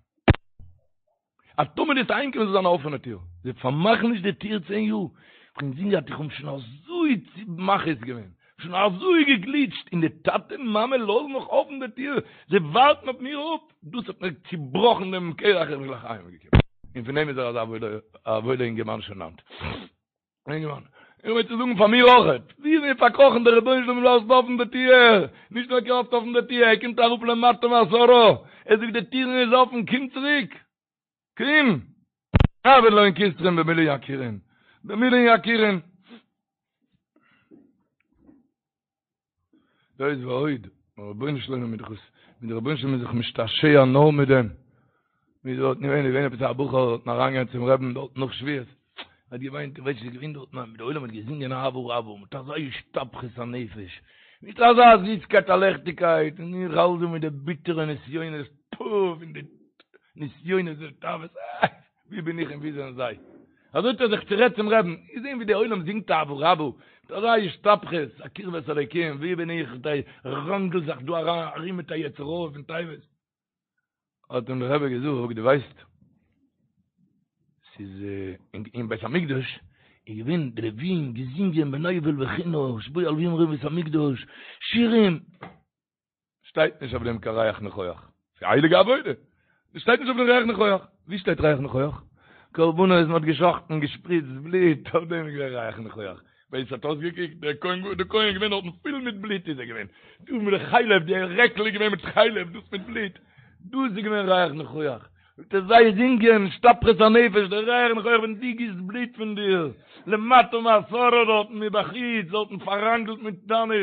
אז טאמער דו וועסט אהיימקומען זאל זיין א אפענע טיר, זיי פארמאכן נישט די טיר צען יאר, איך האב אינזין געהאט איך האב שוין אזוי מכעיס געווען, שוין אזוי געגליטשט, און די טאטע מאמע לאזן נאך אפן די טיר, זיי ווארטן אויף מיר אפ, דאס האט מיר צובראכן דעם קרח איך בין גלייך אהיימגעקומען, און פון דעם איז ער אזא וואוילע אינגערמאן שוין היינט. אינגערמאן, איך מיין צו זאגן פאר מיר אויכעט, ווי איז מיר פארקראכן דער רבונו של עולם לאזט אפן די טיר, נישט נאר קלאפט אפן די טיר, ער קומט אראפ למטה מעשרה, ער זאגט די טירן איז אפן, קום צוריק, קום! נעביד להון כתרין במילין יקירין, במילין יקירין. זאת ועוד, דער רבונו של עולם איז דאך עס, מיט דער רבונו של עולם איז זיך משתעשע נאר מיט דעם. ווי דארט געווען, איז געווען עפעס א בחור דארטן אריינגעגאנגען צום רעבן דארט נאך שבועות, האט געוויינט, איך ווייס נישט, געווען דארט, ניין, דער עולם האט געזינגען אהבה רבה, מיט אזא השתפכות הנפש, מיט אזא זיסקייט א לעכטיגקייט, און איך האלט דא מיט די ביטערע נסיונות, פו, פון די נסיונות די תאוות, אה! ווי בין איך און ווי זענען זיי? אזוי האט ער זיך צורעדט צום רעבן, געזען ווי די עולם זינגט אהבה רבה, מיט אזא השתפכות, א קרבת אלוקים, ווי בין איך, ראנגל זיך דא ארום מיט א יצר הרע פון תאוות. האט אים דער רבי געזאגט, דו ווייסט, ס'איז אין בית המקדש איז געווען די לווים געזינגען בנבל וכינור, שבו הלווים רום בית המקדש, שירים, שטייט נישט אויף דעם קיין ריח ניחוח. ס'איז א הייליגע עבודה. שטייט נישט אויף דעם ריח ניחוח. ווי שטייט ריח ניחוח? קרבנות מ'האט געשחטן, געשפריצט בלוט, אויף דעם איז געווען ריח ניחוח. ווי עס האט אויסגעקוקט, דער כהן דער כהן איז געווען דארטן פול מיט בלוט איז ער געווען. דא מיט די חלב, די רעקל איז געווען מיט חלב, דאס מיט בלוט. דאס איז געווען ריח ניחוח. זאגט ער זיי זינגען, השתפכות הנפש, דער ריח ניחוח ווען דו גיסט בלוט פון דיר, למטה מעשרה דארטן מבחוץ, דארטן פארראנגלט מיט דיינע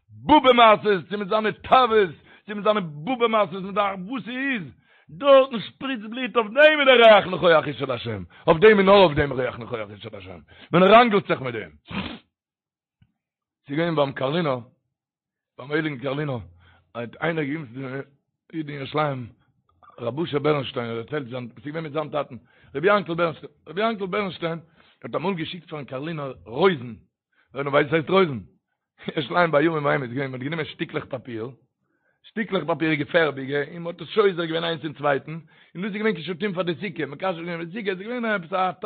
באבע מעשה'ס, צו מיט זיינע תאוות, צו מיט זיינע באבע מעשה'ס, מיט די וואס ס'איז, דארטן שפריצט בלוט, אויף דעם איז דער ריח ניחוח אשה להשם, אויף דעם און נאר אויף דעם ריח ניחוח אשה להשם, מען ראנגלט זיך מיט דעם. ס'איז געווען ביים קארלינער, ביים הייליגן קארלינער, האט איינער געגעבן צו די איד אין ירושלים, רבי אשר בערנשטיין האט דערציילט זיין, ס'איז געווען מיט זיין טאטן, רבי יענקל בערנשטיין, רבי יענקל בערנשטיין האט אמאל געשיקט פארן קארלינער רויזן, ווער נאר ווייסט וואס הייסט רויזן? ירושלים בימים ההם איז געווען, מ'האט גענומען שטיקלעך פאפיר, שטיקלעך פאפיר געפערביגע, און מ'האט עס שוזר געווען איינס אין צווייטן, און דאס איז געווען קישוטים פאר די סוכה, מקשט געווען די סוכה, עס איז געווען עפעס א, עס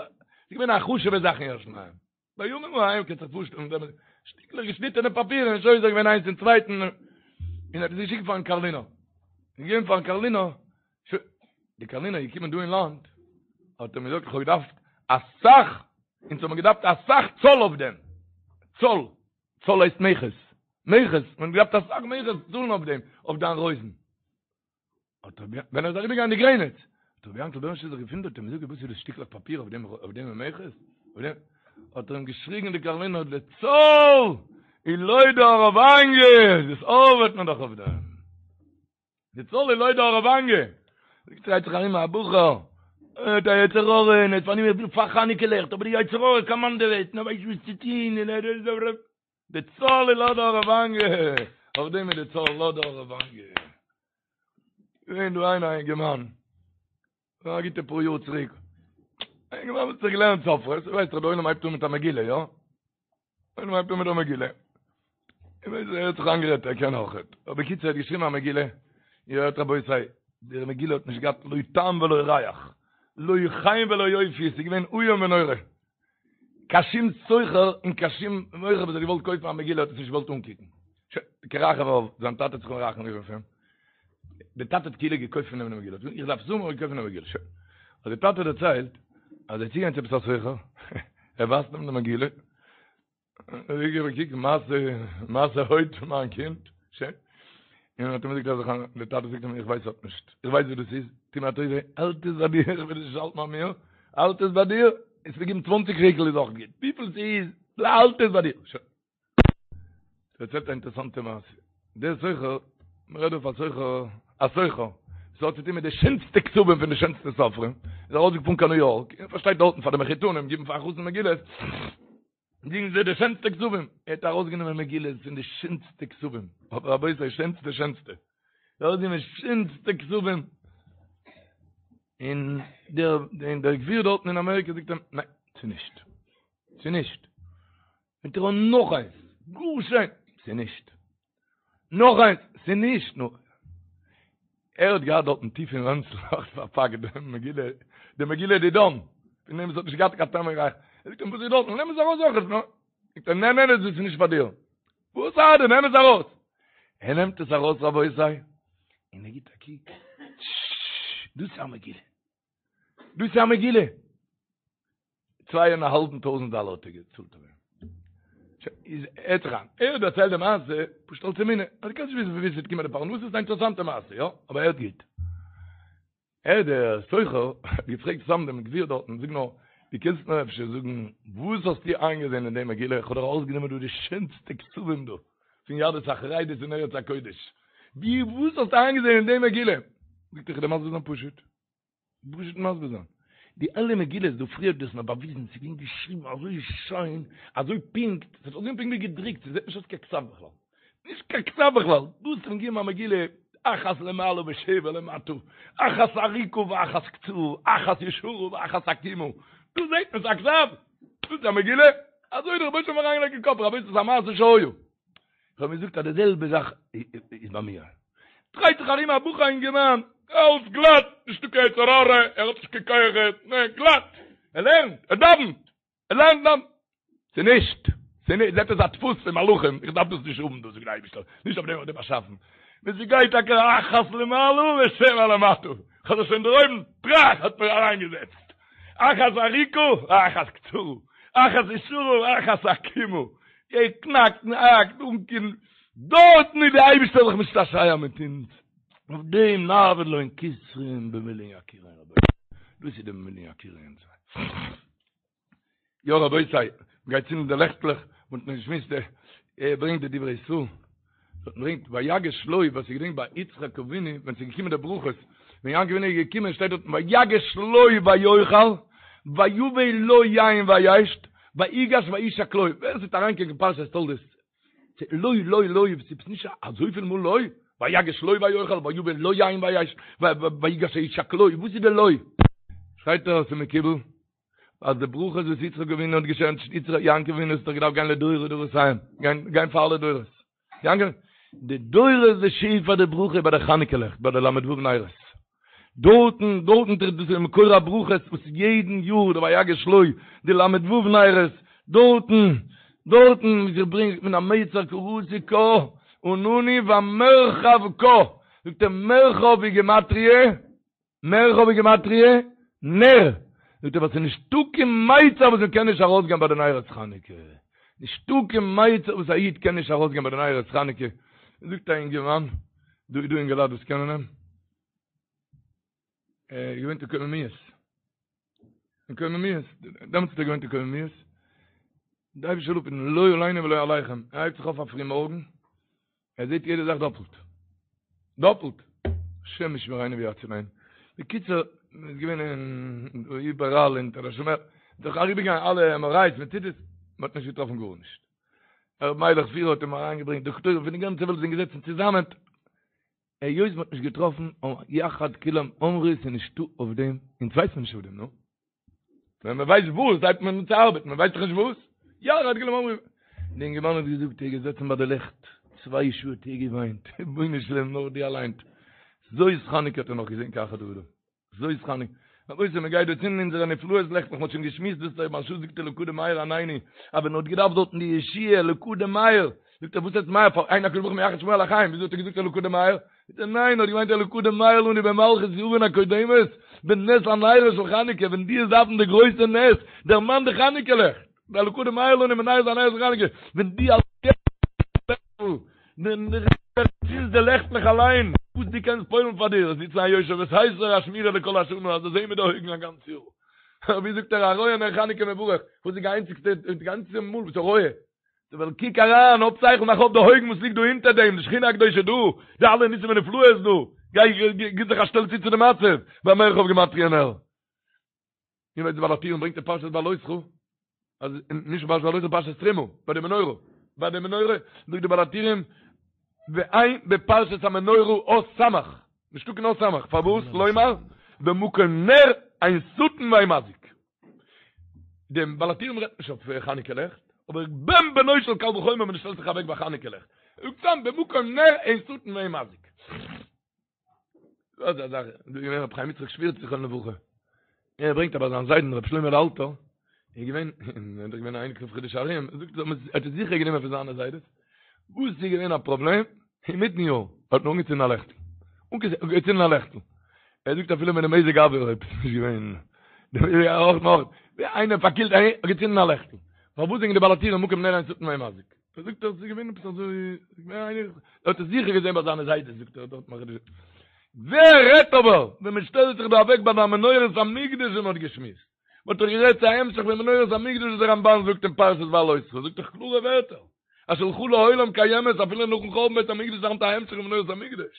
איז געווען א חשוב'ע זאך אין ירושלים. בימים ההם קענסט זיך פארשטעלן, שטיקלעך געשניטענע פאפיר און שוזר געווען איינס אין צווייטן, און האט עס געשיקט פארן קארלינער. געגעבן פארן קארלינער, די קארלינער איז געקומען דא אין לאנד, האט ער מיר געזאגט איך האב געדארפט אסאך, אונז האבן געדארפט אסאך צאל אויף דעם, צאל, צאל הייסט מכס, מכס, מען האט געדארפט אסאך מכס צאלן אויף דעם, אויף דיין רויזן. האט רבי, ווען ער איז אריבערגעגאנגען די גרעניץ, האט רבי יענקל בערנשטיין זיך געוואונדערט און געזאגט וואס איז דאס שטיקלעך פאפיר אויף דעם, אויף דעם מכס? אויף דעם? האט ער אים געשריגן די קארלינער, די צאל איז לויט די האראוואניע, דאס ארבעט מען דאך אויף דעם. די צאל איז לויט די האראוואניע. דרייט זיך ארום א בחור, ער האט א יצר הרע, און ער איז פארנומען וויל פאר חנוכה לעכט, אבער די יצר הרע קאמאנדעוועט, און ער ווייסט נישט וואס צו טון, און ער איז די צאל איז לויט די האראוואניע, אויף דעם איז די צאל לויט די האראוואניע. געווען דא איינער א אינגערמאן, א גוטע פאר יאר צוריק, א אינגערמאן וואס האט זיך געלערנט סופרות, ווייסט דאך די עולם הייבט אן מיט א מגילה, יא? עולם הייבט אן מיט א מגילה. איך ווייס ער האט זיך איינגערעדט ער קען אויכעט. אבער בקיצור ער האט געשריבן א מגילה, איר הערט רבותי, די מגילה האט נישט געהאט לא טעם ולא ריח, לא חן ולא יופי, עס איז געווען איום ונורא. קיין שום סוחר און קיין שום מוכר וואס האט געוואלט קויפן א מגילה האט עס נישט געוואלט אנקוקן. שוין, כרחם אב, זיין טאטע האט זיך מרחם געווען אויף אים. דער טאטע האט כאילו געקויפט פון אים די מגילה. איך דארף עס האבן, האט ער געקויפט פון אים די מגילה. שוין. האט דער טאטע דערציילט אז ער איז צוגעגאנגען צו עפעס א סוחר, ער ווייזט אים די מגילה, ער האט געגעבן א קוק, מעשה, מעשה הוד פון מיין קינד, שוין. און האט אים געזאגט אז איך, דער טאטע זאגט אים, איך ווייס האט נישט, איך ווייס וואס דאס איז, טו מיר א טובה, האלט עס ביי דיר, איך וויל עס נישט האלטן ביי מיר, האלט עס ביי דיר, וועסט מיר געבן צוואנציג שקל איז אויך גוט, וויפיל ס'איז, האלט עס ביי דיר, שוין. דערציילט א אינטערעסאנטע מעשה, דער סוחר, מ'רעדט דא פון א סוחר. א סוחר, וואס האט צוטון מיט די שענסטע כתבים פון די שענסטע סופרים, איז ארויסגעפארן קיין ניו יארק, און פארשטייט דארטן פאר די מחותנים גיבן פאר א חתן מגילות, גיבן זיי די שענסטע כתבים, ער האט ארויסגענומען מגילות פון די שענסטע כתבים, אבער רבותי שענסטע שענסטע, ארויסגענומען שענסטע כתבים, און דער און דער גביר דארטן אין אמעריקע זאגט אים, ניין, ס'איז נישט, ס'איז נישט. נעמט ער אן נאך איינס, גאר שיין, ס'איז נישט. נאך איינס, ס'איז נישט. נו, ער האט געהאט דארטן טיף אין רענצל נאך פארפאקט די מגילה, די מגילה דידן, פון דעם וואס האט נישט געהאט קיין טעם און ריח. ער זאגט אים, וואס איז דארטן? נעם עס ארויס אויך. נו, זאגט ער, נע נע נע, דאס איז נישט פאר דיר. וואס ארט דיר? נעם עס ארויס. ער נעמט עס ארויס רבותי, און ער גיט א קוק, דאס איז א מגילה. דאס איז א מגילה. צוויי און א האלבן טויזנט דאלער האט ער געצאלט אויף דעם. איז הערט זיך איין, ער האט דערציילט די מעשה פשוט אלס אמונה, אז דו קענסט נישט וויסן פון וואו ס'וועט קומען די פרנסה, ס'איז א אינטערעסאנטע מעשה, יא, אבער הערט גוט. ער דער סוחר האט געפרעגט סתם דעם גביר דארטן, זאג נאר, דו קענסט מיר אפשר זאגן וואס האסטו איינגעזען אין די מגילה, איך האב דאך ארויסגענומען דא די שענסטע כתבים דא, פון יהדות החרדית אין ארץ הקודש, ווי וואס האסטו איינגעזען אין די מגילה? זאגט ער, איך וועל דיר מסביר זיין פשוט. פשוט מסביר זיין. די אלע מגילות דא פריער האט דאס מיר באוויזן, ס'איז געווען געשריבן אזוי שיין, אזוי פונקט, ס'האט אויסגעזען פונקט ווי געדרוקט, ס'זעט נישט אויס קיין כתב בכלל. נישט קיין כתב בכלל. דא האסטו מיר געגעבן א מגילה, אחת למעלה ושבע למטה, אחת ארוכה ואחת קצרה, אחת ישרה ואחת עקומה. דא זעט מען ס'איז א כתב. דאס איז א מגילה. אזוי האט דער רבונו של עולם אריינגעלייגט אין קאפ, רבותי ס'איז א מעשה שהיה. איך האב געזאגט אז די זעלבע זאך איז ביי מיר. דרייט זיך ארום א בחור א אינגערמאן, אלס גלאט, נישטא קיין יצר הרע, ער האט נישט קיין כוחות, נע, גלאט, ער לערנט, ער דאווענט, ער לערנט דאווענט. ס'איז נישט, ס'איז נישט, זעט אויס א דפוס פון מלאכים, איך דארף דאס נישט האבן דאס זאגט דער אייבערשטער, נישט אויף דעם האט ער דיך באשאפן. ווען ס'גייט טאקע אחת למעלה ושבע למטה, כ'האב זיך שוין דערהויבן, טראך האט מיר אריינגעזעצט. אחת ארוכה ואחת קצרה, אחת ישרה ואחת עקומה, ער קנאקט און האקט אן קיין, דארטן איז די אייבישטער זיך משתעשע מיט אונז, אויף דעם נעבוד להון כתרין במילין יקירין רבותי, דאס איז די במילין יקירין. יא רבותי, מ'גייט צינדן די לעכטלעך, מ'האט נאך געשמועסט, ער ברענגט די דברי ישראל, ברענגט ויגש לו, ווער ס'געדענקט ביי יצחק אבינו ווען ס'איז געקומען די ברכות, ווען יעקב אבינו איז געקומען שטייט דארטן ויגש לו ויאכל ויבא לו יין וישת ויגש וישק לו, ווער ס'וועט אריינקוקן אין פרשת תולדות, לו לו לו, ס'איז נישט אזויפיל מאל לו, ויגש לו ויאכל ויבא לו יין וישת ויגש וישק לו, וואס איז די לו? שרייט ער אז ס'איז מקובל אז די ברכות וואס יצחק אבינו האט געשענקט יעקב אבינו האט דאך געדארפט גיין לדורי דורותיהם, גיין פאר אלע דורות. יעקב, די דורות די שפע די ברכה ביי די חנוכה לעכט ביי די ל"ו נרות. דארטן, דארטן טרעפט דאס איז מקור הברכות וואס יעדן יאר די ויגש לו די ל"ו נרות, דארטן, דארטן ווי זיך ברענגט מן המיצר קראתי קה ענני במרחב קה, זאגט ער מרחב היא גימטריא, מרחב איז גימטריא נר, זאגט ער ווייל ס'איז נישטא קיין מיצר וואס מ'קען נישט ארויסגיין ביי די נרות חנוכה, נישטא קיין מיצר וואס א איד קען נישט ארויסגיין ביי די נרות חנוכה, זאגט א אינגערמאן, דא איז דא אינגעלייט וואס קענען אים, ער איז געווען אין קוממיות, אין קוממיות, דעמאלטס האט ער געוואוינט אין קוממיות, די אייבישטער זאל אפהיטן לא עלינו ולא עליכם, ער הייבט זיך אויף א פרי מארגן, ער זעט יעדע זאך דאפלט. דאפלט! השם ישמרינו ויצילנו. בקיצור, מען איז געווען אין איבעראל אין תל השומר, זיך אריבערגעגאנגען אלע עם אר איי'ס מיט סיטי'ס, מען האט נישט געטראפן גארנישט. ר' מיילעך פירער האט אים אריינגעברענגט דאקטוירים פון די גאנצע וועלט זענען געזעצן צוזאמען, היות מען האט נישט געטראפן, יחד כולם אמרו ס'איז נישטא אויף דעם, אונז ווייסט מען נישט אויף דעם, נו. ווען מען ווייסט וואס, הייבט מען אן צו ארבעטן, מען ווייסט דאך נישט וואס. יחד כולם אמרו. די אינגערמאן האט געזאגט, ער איז געזעצן ביי די לעכט, צוויי שעה האט ער געוויינט, רבונו של עולם נאר דו אליין. זאת חנוכה האט ער נאך געזען כאחד האדם. זאת חנוכה. רבותי, מען גייט דא צינדן אונזערע נפלאות לעכטלעך, מען האט שוין געשמועסט דאס דער מהרש"א זאגט אלקא דמאיר ענני, אז ווען ער האט געדארפט דארטן די ישועה אלקא דמאיר, זאגט ער וואס הייסט מאיר פאר אין הקדוש ברוך הוא מייחד שמו על החיים, וויאזוי האט ער געזאגט אלקא דמאיר? זאגט ער ניין, ער האט געמיינט אלקא דמאיר לנו במלכות יון הקודמת, בנס הנרות של חנוכה, ווען דו וועסט דארפן די גרויסע נס, דערמאן די חנוכה לעכט, אלקא דמאיר לנו בנס הנרות של חנוכה, ווען דו צינדסט די לעכטלעך אליין, וואס דו קענסט פועל'ן פאר דיר, זיצן א יושב בסתר א שמירה לכל השנה, אז דאס זעהן מיט די אויגן א גאנץ יאר. ווי זאגט ער הרואה נר חנוכה מברך, וואס איז די איינציגסטע, די גאנצע מאל וואס ער רואה? ווייל קוק אריין, האב שכל, מאך אויף די אויגן וואס ליגט דא אונטער דעם, די שכינה הקדושה דא, די אלע ניסים ונפלאות דא, גיי גיב זיך א שטעל צו צו די מצב, במרחב גימטריא נר. איר ווייסט די בעל הטורים ברענגט אין פרשת בהעלותך, אז נישט פרשת בהעלותך פרשת תרומה, ביי די מנורה, ביי די מנורה זאגט די בעל הטורים, ואין בפרשת המנורה אות סמך, נישטא קיין אות סמך, פארוואס? לומר, במקום נר אין שטן ואין מזיק. דעם בעל הטורים רעדט נישט אויף חנוכה לעכט, אבער בן בנו של קל וחומר ווען דו שטעלסט זיך אוועק ביי חנוכה לעכט. זאגט סתם במקום נר אין שטן ואין מזיק. דאס איז א זאך, דא איז געווען רבי חיים יצחק שווירץ זכרונו לברכה. ער ברענגט אבער זיין זיידן רבי שלמה אלתר, איז געווען, ער איז געווען א אייניקל פון חידושי הרי"ם, ער זאגט ער האט עס זיכער גענומען פון זיינע זיידעס, וואס איז געווען א פראבלעם? אינמיטן יאר האט מען אנגעצינדן א לעכטל, אנגעצינדן א לעכטל, ער זאגט אפילו מיט די מזג האוויר אויב עס איז נישט געווען, אויך נאך, ווי איינער פארקילט האט געצינדן א לעכטל, פארוואס זאגן די בעל הטורים מקום נר אין שטן ואין מזיק? ער זאגט עס איז געווען עפעס אזוי, ער האט עס זיכער געזען ביי זיינע זיידעס זאגט ער דארט מאכט ווער רעדט אבער ווען מען שטעלט זיך דא אוועק ביי די מנורת המקדש און מען האט געשמועסט, מען האט דאך גערעדט צו א המשך פון מנורת המקדש וואס דער רמבן זאגט אין פרשת בהעלותך, זאגט דאך קלארע ווערטער. אז שלך לעולם קיימת אפילו נאכן חורבן בית המקדש איז היינט א המשך פון מנורת המקדש.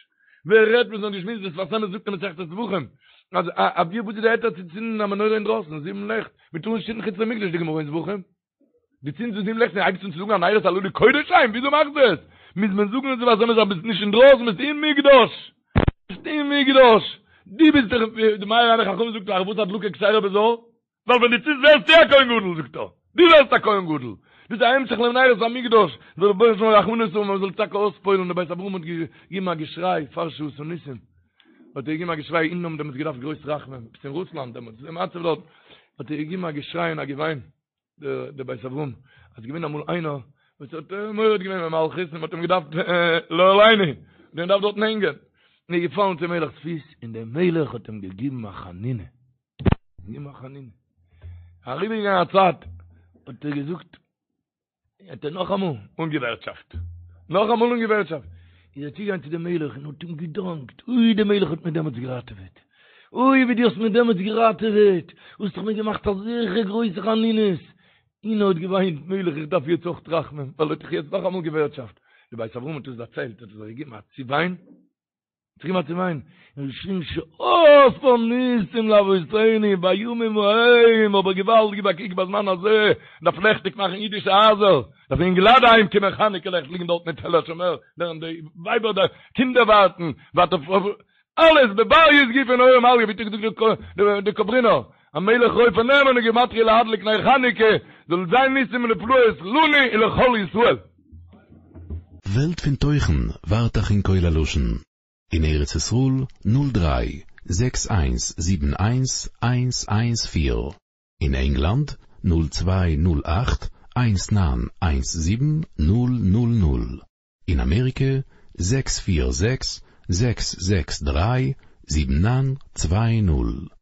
ווער רעדט וואס מ'האט געשמועסט דער שפת אמת זאגט אין מסכת זבחים אז א ווי וואס איז די היתר צו צינדן א מנורה אינדרויסן זיבן לעכט מ'טאר נישט צינדן חוץ למקדש די גמרא אין זבחים דו צינדסט זיבן לעכט און הייבסט אן צו זאגן הנרות הללו קודש הם וויאזוי מאכסטו עס מוז מען זאגן אין שפת אמת אז ביסט נישט אינדרויסן ביסט אין מקדש ביסט אין מקדש דו ביסט דאך די מאיר עיני חכמים זאגט פארוואס הדלקה כשרה בזר ווייל ווען דו צינדסט ווערסטו א כהן גדול, זאגט ער, דו ווערסט א כהן גדול, דאס איז א המשך למנורת המקדש, זאל דער רבונו של עולם רחמנות האבן מען זאל טאקע אויספועל'ן, דער בית אברהם האט געגעבן א געשריי פאר שעשה ניסים, האט ער געגעבן א געשריי אונז האבן דעמאלטס געדארפט גרויס רחמים, עפעס אין רוסלאנד דעמאלטס, די מצב דארט, האט ער געגעבן א געשריי און א געוויין, דער בית אברהם, אז ס'איז געווען אמאל איינער וואס האט מורד געווען במלכות און מ'האט אים געדארפט לא עלינו, מ'האט אים געדארפט דארטן הענגען, און ער איז געפאלן צום מלך'ס פיס און דער מלך האט אים געגעבן א חנינה. געגעבן א חנינה. אריבערגעגאנגען א צייט, האט ער געזאגט, האט ער נאכאמאל אנגעווערטשאפט, נאכאמאל אנגעווערטשאפט, איז ער צוגעגאנגען צו דעם מלך און האט אים געדאנקט, אוי דער מלך האט מיר דעמאלטס געראטעוועט, אוי ווי דו האסט מיר דעמאלטס געראטעוועט, האסט דאך מיר געמאכט אזעלכע גרויסע חנינות, און ער האט געוויינט, מלך איך דארף יעצט אויך רחמים, ווייל ער האט דאך יעצט נאכאמאל געווערטשאפט. דער בית אברהם האט עס דערציילט, האט ער זיך געגעבן א צעוויין, זיך געגעבן א צעוויין, און געשריגן שעשה ניסים לאבותינו בימים ההם, אבער געוואלד גיב א קוק בזמן הזה, מ'דארף לעכטיג מאכן אידישע הייזער, דארף אינגעלייט אהיים קומען חנוכה לעכט ליגן דארט אין תל השומר, לערנען די ווייבער די קינדער ווארטן, ווארט אויף אלעס בבריות גופא נהורא מעליא, ווי האט געזאגט די קאברינער, המלך רופא נאמן גימטריא להדליק נר חנוכה, זאל זיין ניסים ונפלאות לנו ולכל ישראל. וועלט פון תוכן ווארט אייך אין קול הלשון אין ארץ ישראל נול דריי זעקס איינס זיבן איינס איינס איינס פיר, אין ענגלאנד נול צוויי נול אכט איינס ניין איינס זיבן נול נול נול, אין אמעריקע זעקס פיר זעקס זעקס זעקס דריי זיבן ניין צוויי נול.